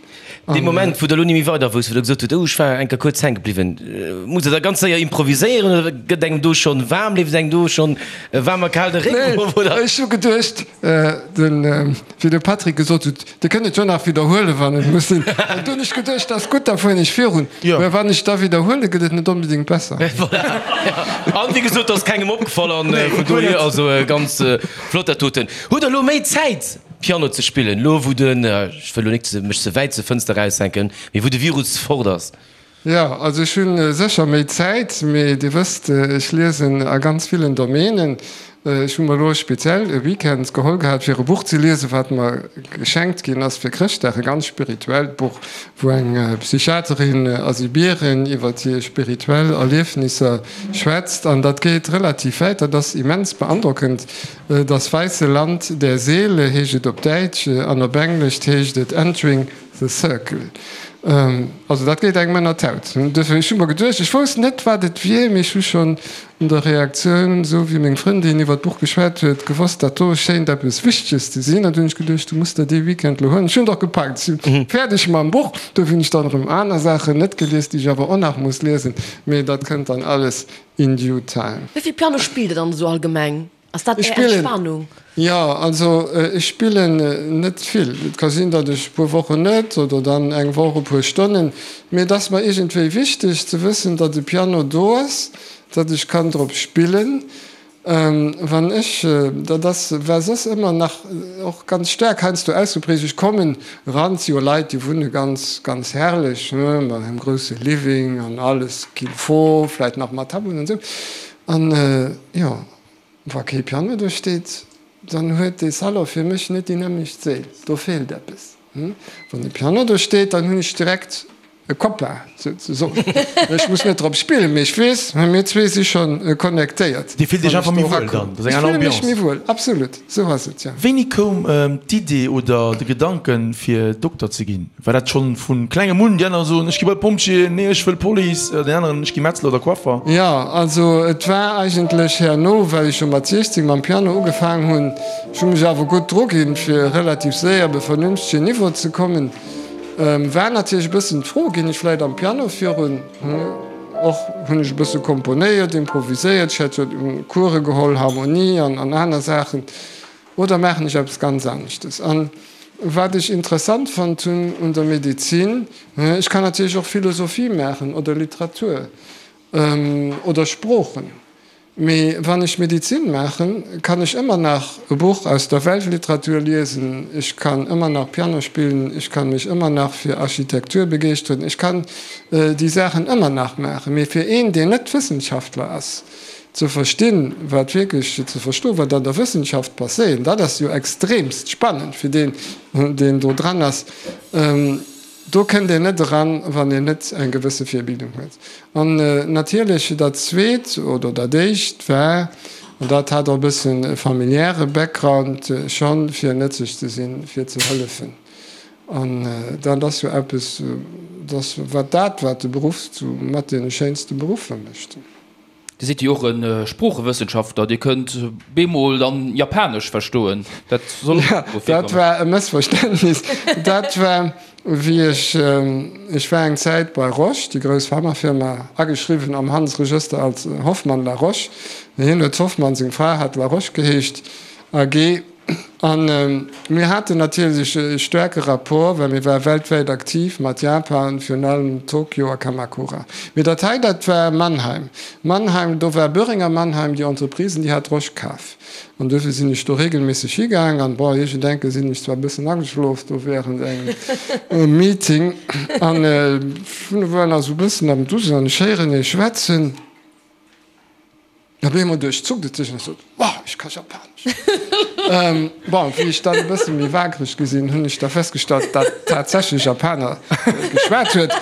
Dee Moment, wou Der elo ni méi weider wousst, wou Der gesot hutt, oh, ech war eng Kéier kuerz hänke bliwwen, musst Der da ganz séier improviséieren oder gëtt engem do schonn waarm, leeft et engem do schonn waarm a kal de Réck erof, oder? Nee, ech hu geduecht, den, wéi de Patrick gesot huet, Dir kënnt et jo nach widderhuelen, wann et muss sinn. An du hunn ech geduecht, dat ass gutt, da fueren ech virun. Mä wann ech da widderhuelen, gëtt et net onbedéngt besser. Voilà. An wéi gesot, ass kengem opgefall an vun dohier also ganz flott dat doten. Hutt Der elo méi Zäit Piano ze spillen, elo wou den, ech wëll elo nik mech ze wäit zur Fënster eraushänken, mee wou de Virus fort ass? Jo, also ech hu sécher méi Zäit, mee Dir wësst, ech liesen a ganz villen Domänen. Ech hu mer elo speziell e Weekend geholl gehat, fir e Buch ze liesen, wat mer geschenkt ginn ass fir Chrëschtdag, e ganz spirituellt Buch, wou eng Psychiaterin a Sibirien iwwer hir spirituell Erliefnisser schwätzt. An dat geet relativ wäit, dat ass immens beandrockend. Das weisse Land der Seele heescht et op Däitsch an op Englesch heescht et Entering The Circle. Also dat geet engem ënner d'Haut. Duerfir, ech hu mer geduecht, ech wousst net, wat et wier, mee ech hu schonn un der Reaktioun, esou wéi meng Frëndin iwwer d'Buch geschwat huet, gewosst, dat do schéint eppes Wichteges ze sinn. An du hunn ech geduecht, du muss der dee Weekend elo huelen. Ech hunn et och gepackt, ech si fäerdeg mam Buch. Duerfir hunn ech dann erëm aner Saachen net gelies, déi ech awer och nach muss liesen. Mee dat kënnt dann alles in due time. Wéi vill Piano spillt Der dann esou allgemeng? Ass dat Är Entspanung? Jo, also ech spillen net vill. Et ka sinn, datt ech e puer Wochen net oder dann eng Woch e puer Stonnen. Mee et ass mer iergendwéi wichteg ze wëssen, datt e Piano do ass, datt ech kann drop spillen. Wann ech, dat ass, war soss ëmmer nach och ganz staark heiansdo ausgeprägt, ech kommen eran, et si jo Leit, déi wunne ganz, ganz herrlech, mat engem grousse Living an alles qu'il faut, vläit nach mat Tableauen an esou. An jo, wa kee Piano do steet, dann huet dee Salon fir mech net déi nämmlecht Séil. Do feelt eppes. Wann e Piano do steet, dann hunn ech direkt e Copain, souzesoen. Ech muss net drop spillen, mee ech weess, mir zwee si scho connectéiert. Dir fillt Iech einfach méi wuel dann? Dat ass eng aner Ambiance? Ech fille mech méi wuel, absolut. Sou ass et, jo. Wéini koum d'Idee oder de Gedanken, fir Dokter ze ginn? War dat schonn vu klengem un? Déi aner soen, ech gi bei d'Pompjeeën, nee ech wëll Police, deen aneren, ech gi Metzler oder Coiffer. Jo, also et war eigentlech herno, well ech jo mat 16 mam Piano ugefaang hunn. Ech hu mech awer gutt druginn, fir relativ séier op e vernünftegen Niveau ze kommen. War natierlech e bëssen d'Fro, ginn ech vläit am Piano virun? Och hunn ech e bësse komponéiert, improviséiert, ech hat jo Course geholl, Harmonie an aner Saachen. Oder maachen ech eppes ganz aneschtes? An wat ech interessant fonnt hunn un der Medezin, ech kann natierlech och Philosophie maachen oder Literatur oder Sproochen, mee wann ech Medezin maachen, kann ech ëmmer nach e Buch aus der Weltliteratur liesen, ech kann ëmmer nach Piano spillen, ech kann mech ëmmer nach fir Architektur begeeschteren, ech kann déi Saachen ëmmer nach maachen. Mee fir een, deen net Wëssenschaftler ass, Ze verstinn, wat wierklech, ze verstoen, wat an der Wëssenschaft passéiert, dat ass jo extremst spannend fir deen, deen do dran ass. Do kënnt een net eran, wann een net eng gewësse Virbildung huet. An natierlech dat Zweet oder dat Éischt war, an dat hat och e bëssen e familiäre Background schonn, fir nëtzlech ze sinn, fir ze hëllefen. An dat ass jo eppes, dat wat dat, wat de Beruff zu mat deene schéinste Beruffer mécht. Dir sidd jo och e Sproochewëssenschaftler, Dir kënnt bemol dann Japanesch verstoen, dat soll och Jo, dat war e Mëssverständnis. Dat war, wéi ech, ech war eng Zäit bei Roche, déi grouss Pharmafirma, ageschriwwen am Handelsregëster als Hoffmann La Roche. Hien huet Hoffmann, seng Fra hat La Roche geheescht, AG. An mir haten natierlech e staarke Rapport, well mir ware weltwäit aktiv mat Japan, virun allem Tokio a Kamakura. Mee dat hei, dat war Mannheim. Mannheim, do war Boehringer Mannheim, déi Entreprise, déi hat Roche kaf. An duerfir sinn ech do regelméisseg higaang. An, bon, iergendenke sinn ech zwar e bëssen ageschlof do während engem Meeting. An ech war nach esou e bëssen am Dusen an ech héieren ee schwätzen. Op eemol duerchzuckt et sech an ech sot, Wow, ech ka Japanesch! Bon, wéi ech dann e bësse méi waakreg gi sinn, hunn ech da festgestallt, datt tatsächlech Japaner geschwat huet,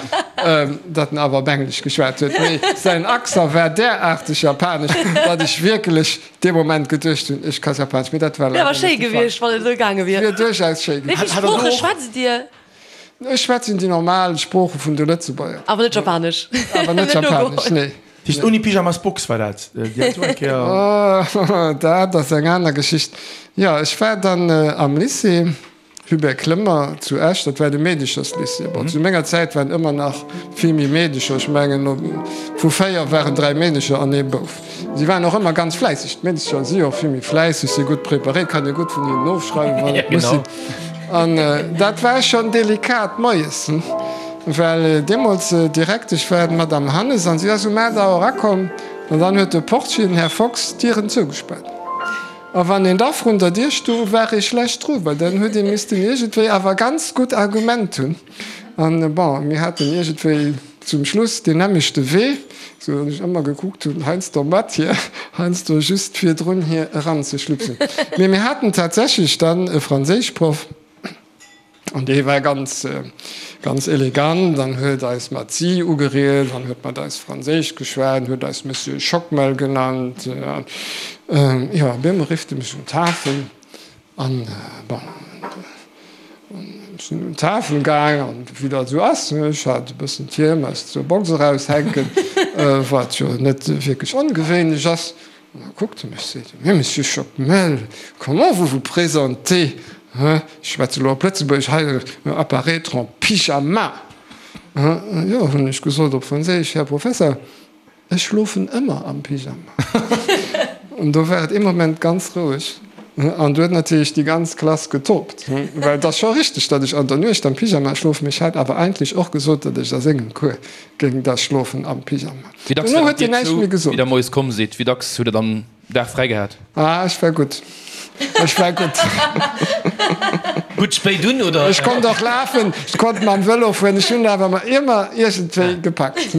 datt en awer op Englesch geschwat huet. Mee säin Accent war deraarteg japanesch, datt ech wierklech dee Moment geduecht hunn, ech ka Japanesch. Mee dat war leider net de Fall. Wär awer schéi gewiescht, wann et esou gaange wier. Wier duerchaus schéi gewiescht. Wéi vill Sprooche schwätzt Dir? Ech schwätzen déi normal Sprooche vun de Lëtzebuerger. Awer net Japanesch? Awer net Japanesch, nee. Déi ouni Pyjamas Box war dat? Déi hat du eng Kéier. Dat ass eng aner Geschicht. Jo, ech war dann am Lycée Hubert Clement zu Esch, dat war de Meedecherslycée. Bon, zu menger Zäit waren ëmmer nach vill méi Meedecher, ech mengen vu 4 waren 3 Meedecher an ee Bouf. Si waren och ëmmer ganz fläisseg. D'Meedecher si jo och vill méi fläisseg, si gutt preparéiert, kann ee gutt vun hinnen ofschreiwen, wann et muss sinn. An dat war schonn delikat moies, well deemools Direktesch war d'Madame Hannes an si ass um 8 Auer erakomm an dann huet de Portier, den Här Fox, d'Dieren zougespaart. A wann een da vrun der Dier stoung, war ee schlecht dru, well dann huet ee missten iergendwéi awer ganz gutt Argument hunn. An, bon, mir haten iergendwéi zum Schluss deen nämmlechte Wee, sou datt ech ëmmer gekuckt hunn, heiansdo mat hir, heiansdo just virdrun hir eranzeschlupsen. Mee mir haten tatsächlech dann e Franséischproff, an dee war ganz, ganz elegant an huet eis mat Sie ugeriet an huet mat eis Franséisch geschwat an huet eis Monsieur Schockmel genannt. An, jo, op eemol rifft e mech un d'Tafel. An, bon, ech sinn un d'Tafel gaang, an wéi dat esou ass, ech hat e bëssen d'Hiem aus der Box eraushänken, wat jo net wierklech ongewéinlech ass. An da kuckt e mech, seet e, Mais Monsieur Schockmel, comment vous vous présentez, hein, ech schwätze elo op Lëtzebuergesch, hei apparaître en pyjama? Jo, hunn ech gesot op Franséisch, Här Professer, Ech schlofen ëmmer am Pyjama. An do war et ee Moment ganz roueg. An du huet natierlech déi ganz Klass getobt. Well et ass scho richteg, datt ech an der Nuecht am Pyjama schlofen, mee ech hat awer eigentlech och gesot, datt ech a sengem Cours géing da schlofen am Pyjama. Wéi dacks Dono war huet dat hien Dir näischt zou, méi wéi gesot. der moies komm sidd? Wéi dacks hutt der dann Dag fräi gehat? Ah, ech war gutt. Ech war gutt. Gutt spéit un, oder? Ech konnt och lafen, ech konnt mam Vëlo fueren, ech hunn awer mer ëmmer iergendwéi gepackt.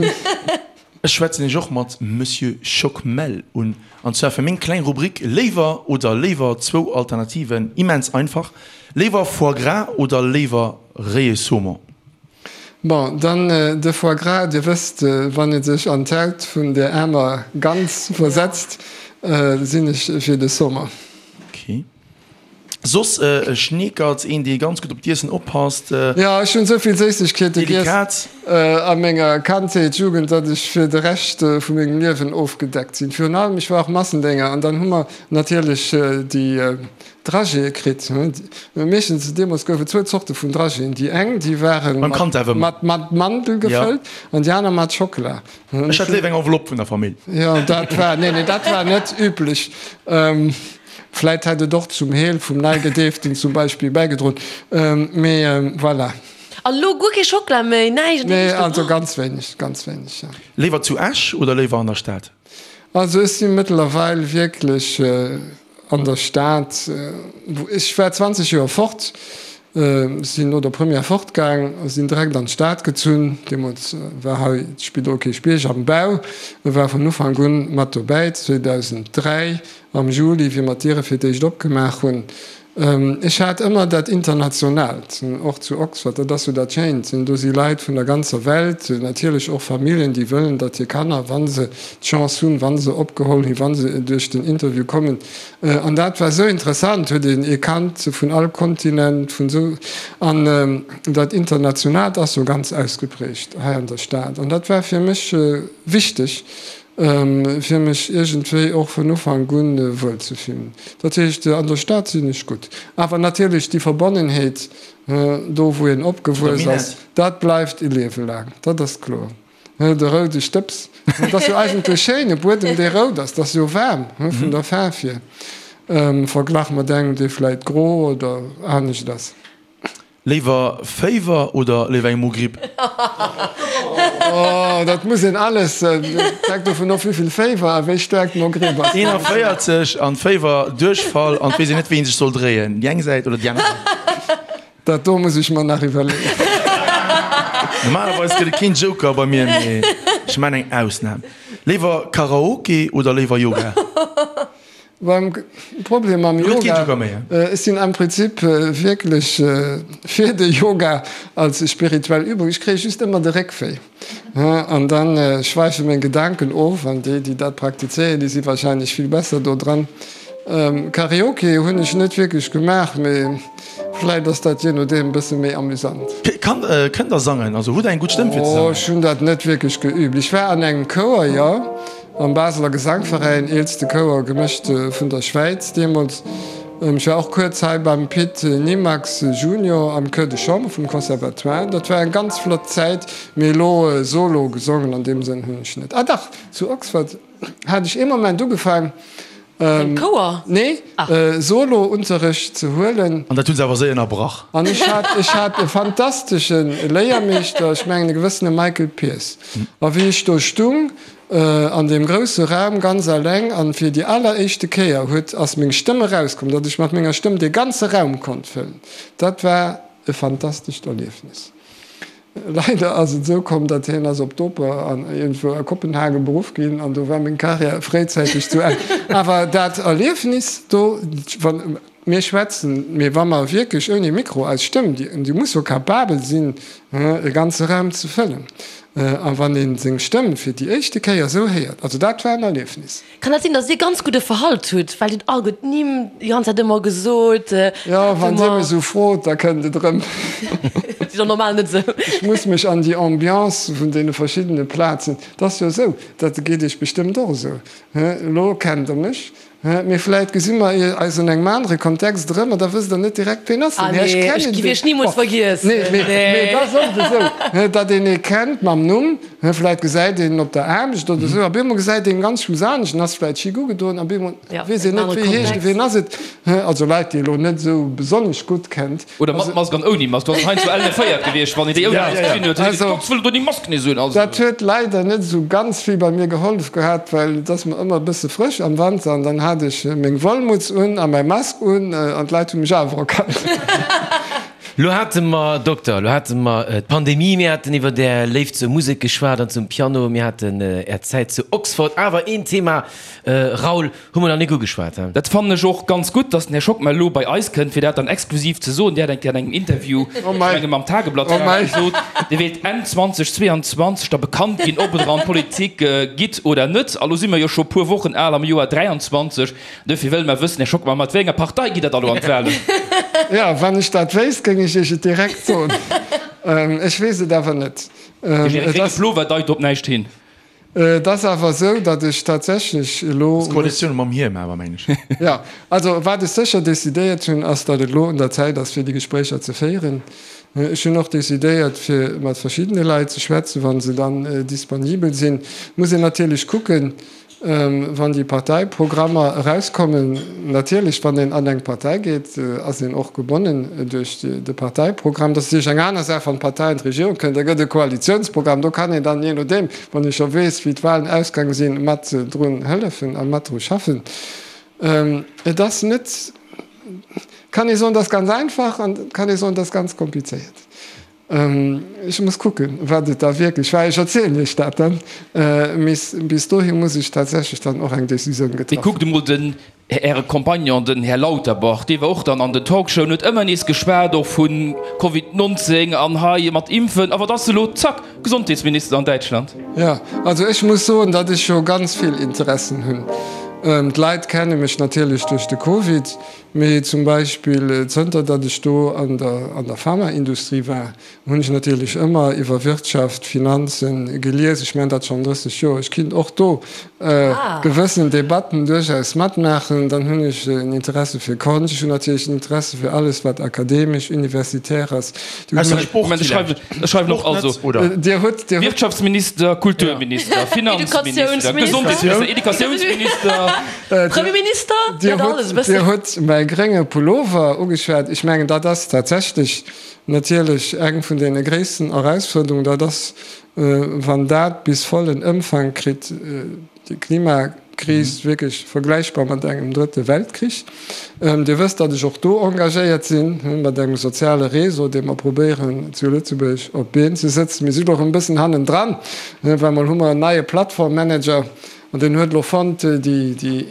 Ech schwätzen iech och mat Monsieur Schockmel un, an zwar fir meng kleng Rubrik Léiwer oder léiwer, zwou Alternativen, immens einfach, Léiwer Foie gras oder léiwer réie Saumon? Bon, dann de Foie gras. Dir wësst, wann ee sech an d'Haut vun där aarmer Gans versetzt, sinn ech fir de Saumon. Ok. Soss e Schneekert, een dee ganz gutt op d'Iessen oppasst. Jo, ech hunn esou vill Séissegkeete giess Delikat. a menger Kandheet, Jugend, datt ech fir de Rescht vu mengem Liewen ofgedeckt sinn. Virun allem, ech war och Massendénger an dann hu mer natierlech déi Dragéeë kritt. Meeschtens, deemools gouf et zwou Zorte vun Dragéeën. Déi eng, déi ware mat Mandel gefëllt an déi aner mat Schockela. Ech hat léiwer eng Enveloppe vun der Famill. Jo, dat war, nee, nee, dat war net üblech. Vläit hätt et och zum Heel vum Neigedeeften zum Beispill bäigedroen, mee voilà. An elo guer kee Schockela méi, näischt? Nee, also ganz wéineg, ganz wéineg, jo. Léiwer zu Esch oder léiwer an der Stad? Also ech si mëttlerweil wierklech an der Stad. Ech war 20 Joer fort, sinn no der Première fortgaang a sinn direkt an d'Stad gezunn. Deemools war hei d'Spidol Kierchbierg am Bau. Ech war vun Ufank un mat dobäi, 2003 am Juli, wéi mer d'Diere fir d'éischt opgemaach hunn. Ech hat ëmmer dat Internationaalt, och zu Oxford, dat ass jo dat Schéint, do si Leit vun der ganzer Welt, natierlech och Familljen, déi wëllen, datt hir Kanner, wa se d'Chance hunn, wa se opgeholl ginn, wa se duerch den Interview kommen, an dat war esou interessant, huet een ee Kand vun all Kontinent, vun esou, an dat Internationaalt ass jo ganz ausgeprägt hei an der Stad, an dat war fir mech wichteg. Fir mech iergendwéi och vun Ufank un wuel ze fillen. Dat heescht, an der Stad sinn ech gutt. Awer natierlech déi Verbonnenheet, do wou een opgewuess ass, dat bleift e Liewe laang, dat ass kloer. De roude Stëbs, dat ass jo eigentlech schéin, e Buedem dee rout ass, dat ass jo waarm vun der Faarf hier. Verglach mat engem, dee vläit gro oder anescht ass. Léiwer Féiwer oder léiwer eng Mogripp? Oh, dat muss een alles, dat hänkt dovun of, wéivill Féiwer a wéi staark d'Mogripp ass. 41 an Féiwer, Duerchfall an et weess een net, wéi een sech soll dréien, déi eng Säit oder déi aner Säit. Dat do muss ech mer nach iwwerleeën. Normalerweis gëtt et keen Joker bei mir, mee ech maan eng Ausnam. Léiwer Karaoke oder léiwer Yoga? Beim Problem mam Yoga, ech sinn am Prinzip wierklech fir de Yoga als spirituell Übung. Ech kréie just ëmmer de Réckwéi an da schwäife meng Gedanken of an déi, déi dat praktizéieren, déi si warscheinlech vill besser do dran. Karaoke hunn ech net wierklech gemaach, mee vläit ass dat jee nodeem e bësse méi amüsant. Kënnt der sangen? Also hutt der eng gutt Stëmm fir ze sangen? Oh, ech hunn dat net wierklech geübt. Ech war an engem Chouer, jo. Am Baseler Gesangveräin, eelste Chouer gemëscht vun der Schwäiz deemools. Ech war och kuerz hei beim Pit Nimax Junior am Chœur de Chambre vum Conservatoire. Dat war eng ganz flott Zäit, mee elo solo gesongen an deem Sënn hunn ech net. Ah dach, zu Oxford hat ech ee Moment ugefaang, Am Chouer? Nee, Solo-Unterrecht ze huelen. An dat hu se awer séier ënnerbrach. An ech hat, ech hat e fantastesche Léiermeeschter, ech mengen e gewëssene Michael Pierce. A wéi ech do stung, An deem grousse Raum ganz alleng an fir déi alleréischte Kéier huet ass meng Stëmm erauskomm, datt ech mat menger Stëmm dee ganze Raum konnt fëllen. Dat war e fantastescht Erliefnis. Leider ass et esou komm, datt hien ass op d'Oper an iergendwou a Kopenhagen beruff ginn an do war meng Karriär fréizäiteg zu Enn. Awer dat Erliefnis do, wann mir schwätzen, mee wa mer wierklech ouni Mikro eis Stëmm, déi muss jo capabel sinn, e ganze Raum ze fëllen, a wann ee seng Stëmm fir déi éischte Kéier esou héiert, also dat war en Erliefnis. Kann dat sinn, datt Dir ganz gudde Verhalt hutt, well Dir hutt all gutt Nimm déi ganz Zäit ëmmer gesot? Jo, wann Dir mech esou frot, da kënnt et erëm. Dat ass jo normal net esou. Ech muss mech an déi Ambiance vun deene verschiddene Plazen, et ass jo esou, dat geet Iech bestëmmt och esou, elo kennt Der mech, Mee vläit gesi mer eis an engem anere Kontext erëm an da wësst Der net direkt, ween ass den Här. Ech kennen deen. Ech géif Iech nimools vergiessen. Nee, mee et ass oft esou, datt een ee kennt mam Numm, vläit gesäit een en op der Aarbecht oder esou, a bemol gesäit een en ganz schluss anescht en ass vläit chic ugedoen, a bemol weess een net, wéi heescht en, ween ass et. Also Leit, déi ee elo net esou besonnesch gutt kennt. Oder mat Mask an ouni Mask, do ass et heiansdo ellen féiert gewiescht, wann een déi ouni Mask gesinn huet, huet een geguckt, wëll do déi Mask nees un. Also. Dat huet leider net esou ganz vill bei mir gehollef gehat, well et ass mer ëmmer e bësse frësch am Wanter an dann hat ech meng Wollmutz un a mäi Mask un an d'Leit hu mech awer erkannt. Lo hate mer, Dokter, lo hate mer d'Pandemie, mir haten iwwer Är Léift zur Musek geschwat an zum Piano, mir haten Är Zäit zu Oxford, awer een Thema, Raoul, Hu mer nach nik ugeschwat, he? Dat fannen ech och ganz gutt, dass den Här Schockmel elo bei eis kënnt, fir dat dann exklusiv ze soen. Dir hat eng Kéier an engem Interview, ech menge mam Tageblatt war et, gesot, Dir wéilt Enn 2022 da bekannt ginn, ob Der an d'Politik gitt oder net. A lo si mer jo scho puer Wochen al am Joer 23. Duerfir wëlle mer wëssen, Här Schockmel, mat wéi enger Partei gitt Der da elo an d'Wahlen? Jo, wann ech dat wéisst, géing ech Iech et direkt soen. Ech weess et awer net. De grénge Plover deit op näischt hin. Et ass awer esou, datt ech tatsächlech elo. Ass d'Koalitioun mam Hiem awer, mengen ech. Jo, also wat ech sécher decidéiert hunn, ass, datt et elo un der Zäit ass, fir déi Gespréicher ze féieren. Ech hunn och decidéiert, fir mat verschiddene Leit ze schwätzen, wa se dann disponibel sinn. Muss een natierlech kucken, Wann déi Parteiprogrammer erauskommen, natierlech, wann een an eng Partei geet, ass een och gebonnen duerch de Parteiprogramm. Dat ass natierlech eng aner Saach, wann d'Partei an d'Regierung kënnt, da gëtt e Koalitionsprogramm. Do kann een dann, jee nodeem, wann ee scho weess, wéi d'Wahlen ausgaange sinn, mat drun hëllefen a mat dru schaffen. Et ass net, kann ee soen, et ass ganz einfach an et kann ee soen, et ass ganz komplizéiert. Ech muss kucken, wat et da wierklech war. Ech erzielen Iech dat dann. Mee bis dohi muss ech tatsächlech dann och eng Decisioun getraff hunn. Mee kuckt emol den Äre Compagnon, den Här Lauterbach, dee war och dann an den Talkshowen, huet ëmmer nees geschwat och vu Covid 19 an hei mat Impfen. A wat ass elo? Zack, Gesondheetsminister an Däitschland. Jo, also ech muss soen, datt ech jo ganz vill Interessen hunn. D'Leit kenne mech natierlech duerch de Covid. Mee zum Beispill zënter datt ech do an der an der Pharmaindustrie war, hunn ech natierlech ëmmer iwwer Wirtschaft, Finanzen gelies. Ech maachen dat schonn 30 Joer. Ech kinnt och do gewëssen Debatten duerchaus matmaachen. Dann hunn ech en Interesse fir Konscht. Ech hunn natierlech en Interesse fir alles wat akademesch, universitär ass. Ausser Sport villäicht. Ech schreiwen och also Dir hutt, Dir hutt. Wirtschaftsminister, Kulturminister, Finanzminister, Gesondheetsminister, Educatiounsminister. Premierminister, Dir hutt, Dir hutt mäi grénge Pullover ugeschwat. Ech mengen, dat ass tatsächlech natierlech eng vun deene gréissten Erausfuerderungen. Dat ass, wann dat bis vollen Ëmfang kritt, déi Klimakris wierklech vergläichbar mat engem Drëtte Weltkrich. Dir wësst, datt ech och do engagéiert sinn, mat engem soziale Réseau, dee mer probéieren zu Lëtzebuerg op d'Been ze sëtzen. Mir si lo erëm e bëssen hannendran, well mol hu mer en neie Plattformmanager an deen huet elo fonnt, déi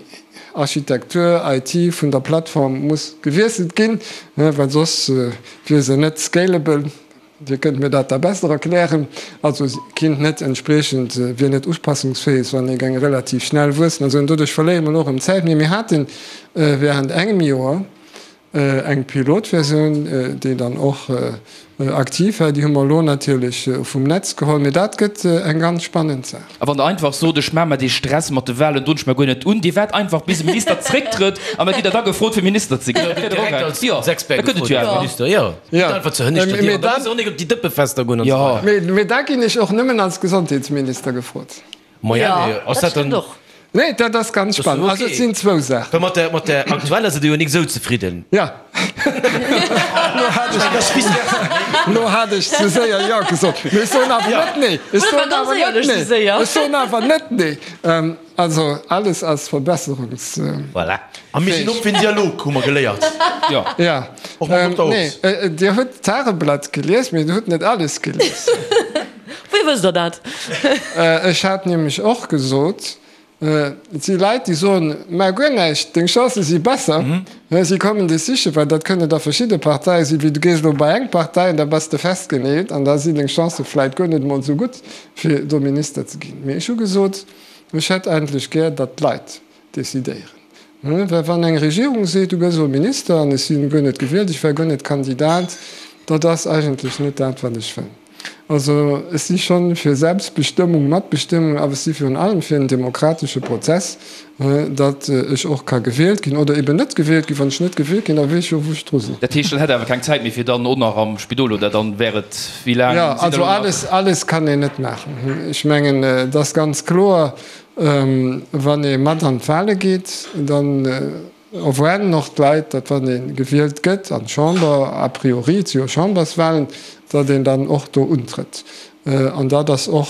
Architektur, IT vun der Plattform muss gewiesselt ginn, well soss wier se net scalable. Dir kënnt mir dat da besser erklären. Also se kinnt net entspriechend, wier net upassungsfähig, wann ee geng relativ schnell wuessen. Also doduerch verléiere mer elo erëm Zäit. Mee mir hate während engem Joer eng Pilotversioun, déi dann och aktiv war. Déi hu mer elo natierlech vum Netz geholl. Mee dat gëtt eng ganz spannend Saach. A wann Der einfach sot, ech maache mer dee Stress mat de Wahlen, droen ech mer guer net un, Dir waart einfach bis e Minister zrécktrëtt an da gitt Der da gefrot fir Minister ze ginn. Dat wier dach och eng, jo, da kënnt et jo awer. Jo, gitt einfach zur hënneschter Dier an da muss och nik op déi Dëppefester goen an esou weider. Mee da ginn ech och nëmmen als Gesondheetsminister gefrot. Maja, mee ass dat dann. Nee, dat ass ganz spannend. Also et sinn zwou Saachen. Well mat der, mat der aktueller sidd Der jo nik esou zefridden. Ja. Lo hat ech, lo hat ech ze séier Jo gesot. Mee ech soen awer net Nee. Ech soen awer net Nee. Ech soen awer net Nee. Also alles ass verbesserungs. Voilà. A mir sinn op fir en Dialog, hu mer geléiert. Jo. Ja. Och mam Dokter Hobbs. Nee, Dir hutt d'Tageblatt gelies, mee Dir hutt net alles gelies. Wéi wësst Der dat? Ech hat nämlech och gesot, et si Leit, déi soen, Maach guer näischt, deng Chancë si besser, si kommen dech sichen, well dat kënne da verschidde Parteie sinn, wéi du gees elo bei eng Partei an da bass de festgeneelt an da sinn deng Chancë vläit guer net emol esou gutt, fir do Minister ze ginn. Mee ech hu gesot, ech hätt eigentlech gär, datt d'Leit decidéieren. Well wann eng Regierung seet, du gëss elo Minister an ech si guer net gewielt, ech war guer net Kandidat, dat ass eigentlech net dat, wat ech wëll. Also ech si schonn fir Selbstbestëmmung, Matbestëmmung, awer ech si virun allem fir en demokratesche Prozess, datt ech och ka gewielt ginn oder eben net gewielt ginn. Wann ech net gewielt ginn, da weess ech jo, wou ech dru sinn. Dat heescht, dann hätt Der awer keng Zäit méi fir dann och nach am Spidol oder dann wär et, wéi laang Jo, sidd Der also elo nach? alles, alles kann een net maachen. Ech mengen, et ass ganz kloer, Wann ee mat an d'Wale geet, dann erwaarden och d'Leit, datt wann ee gewielt gëtt an d'Chamber, a priori, et si jo Chamberswalen, datt een dann och do untrëtt. An dat ass och,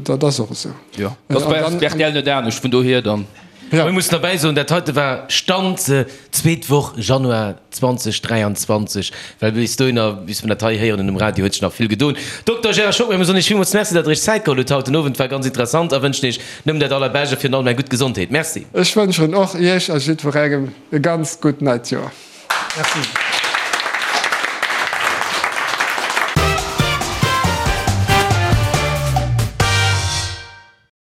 dat ass och esou. Jo, dat ass bei rtl net anescht, vun dohier dann. Mir mussen derbäi soen, dat heite war Stand zweet Woch Januar 2023, well bis dohinner, bis mer dat hei héieren um Radio, huet sech nach vill gedoen. Dokter Gérard Schockmel, mir soen Iech villmools Merci, datt Der Iech Zäit geholl hutt haut den Owend. War ganz interessant a wënschen Iech nëmmen dat Allerbescht a virun allem eng gutt Gesondheet. Merci. Ech wënschen och Iech a jiddwerengem e ganz gutt neit Joer. Merci.